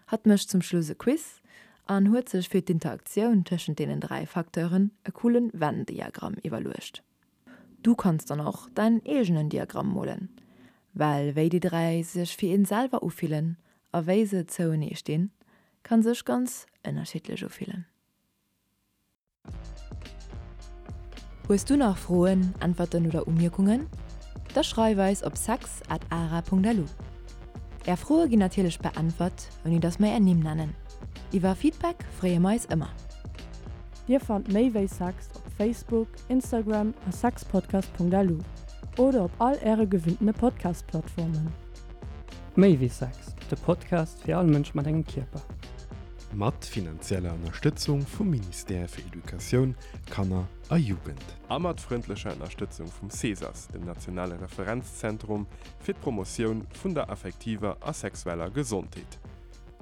C: Hatt mécht zum Schluss e Quiz an huet sech fir d'Interaktioun tëschent deenen 3 Facteuren e coolen Venn-Diagramm iwwerluecht. Du kanns dann och däin eegenen Diagramm molen, well wéi déi 3 sech fir een selwer ufillen a wéi se zouenee stinn, kann sech ganz ënnerschiddlech ufillen. Hues du nach Froen, Äntwerten oder Umierkungen? Da schreif eis op sex at ara.lu. Är Froe ginn natierlech beäntwert, ouni dass mer är Nimm nennen. Iwwer Feedback freeë mer eis ëmmer.
B: Dir fannt méi wéi Sex op Facebook, Instagram a sexpodcast.lu oder op all äre gewinntene Podcast-Plattformen.
D: Méi wéi Sex, de Podcast fir all Mënsch mat engem Kierper.
A: Mat finanzieller Ënnerstëtzung vum Ministère fir Educatioun, Kanner a Jugend. A mat frëndlecher Ënnerstëtzung vum CESAS, dem nationale Referenzzentrum fir d'Promotioun vun der affektiver a sexueller Gesondheet.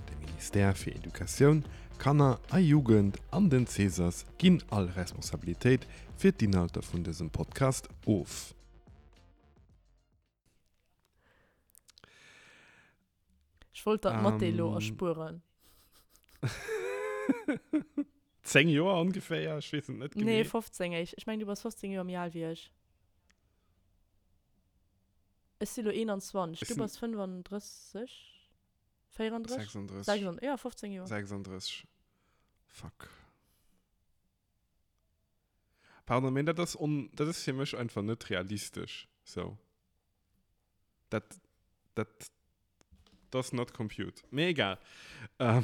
A: De Ministère fir Educatioun, Kanner a Jugend an den CESAS ginn all Responsabilitéit fir d'Inhalter vun dësem Podcast of.
B: Ech wollt der d'Mathé elo erspueren.
A: 10 Joer ongeféier, ech weess et net
B: genee. Nee, 15 éischt. Ech mengen, du bass 15 Joer méi al wéi ech. Ech si lo 21, du bass 35? 34?
A: 36.
B: 36, ja, 15 Joer.
A: 36. Fuck. Pardon, mee dat ass on, dat ass fir mech einfach net realistesch, sou. Dat, dat does not compute. Mee egal. Ähm.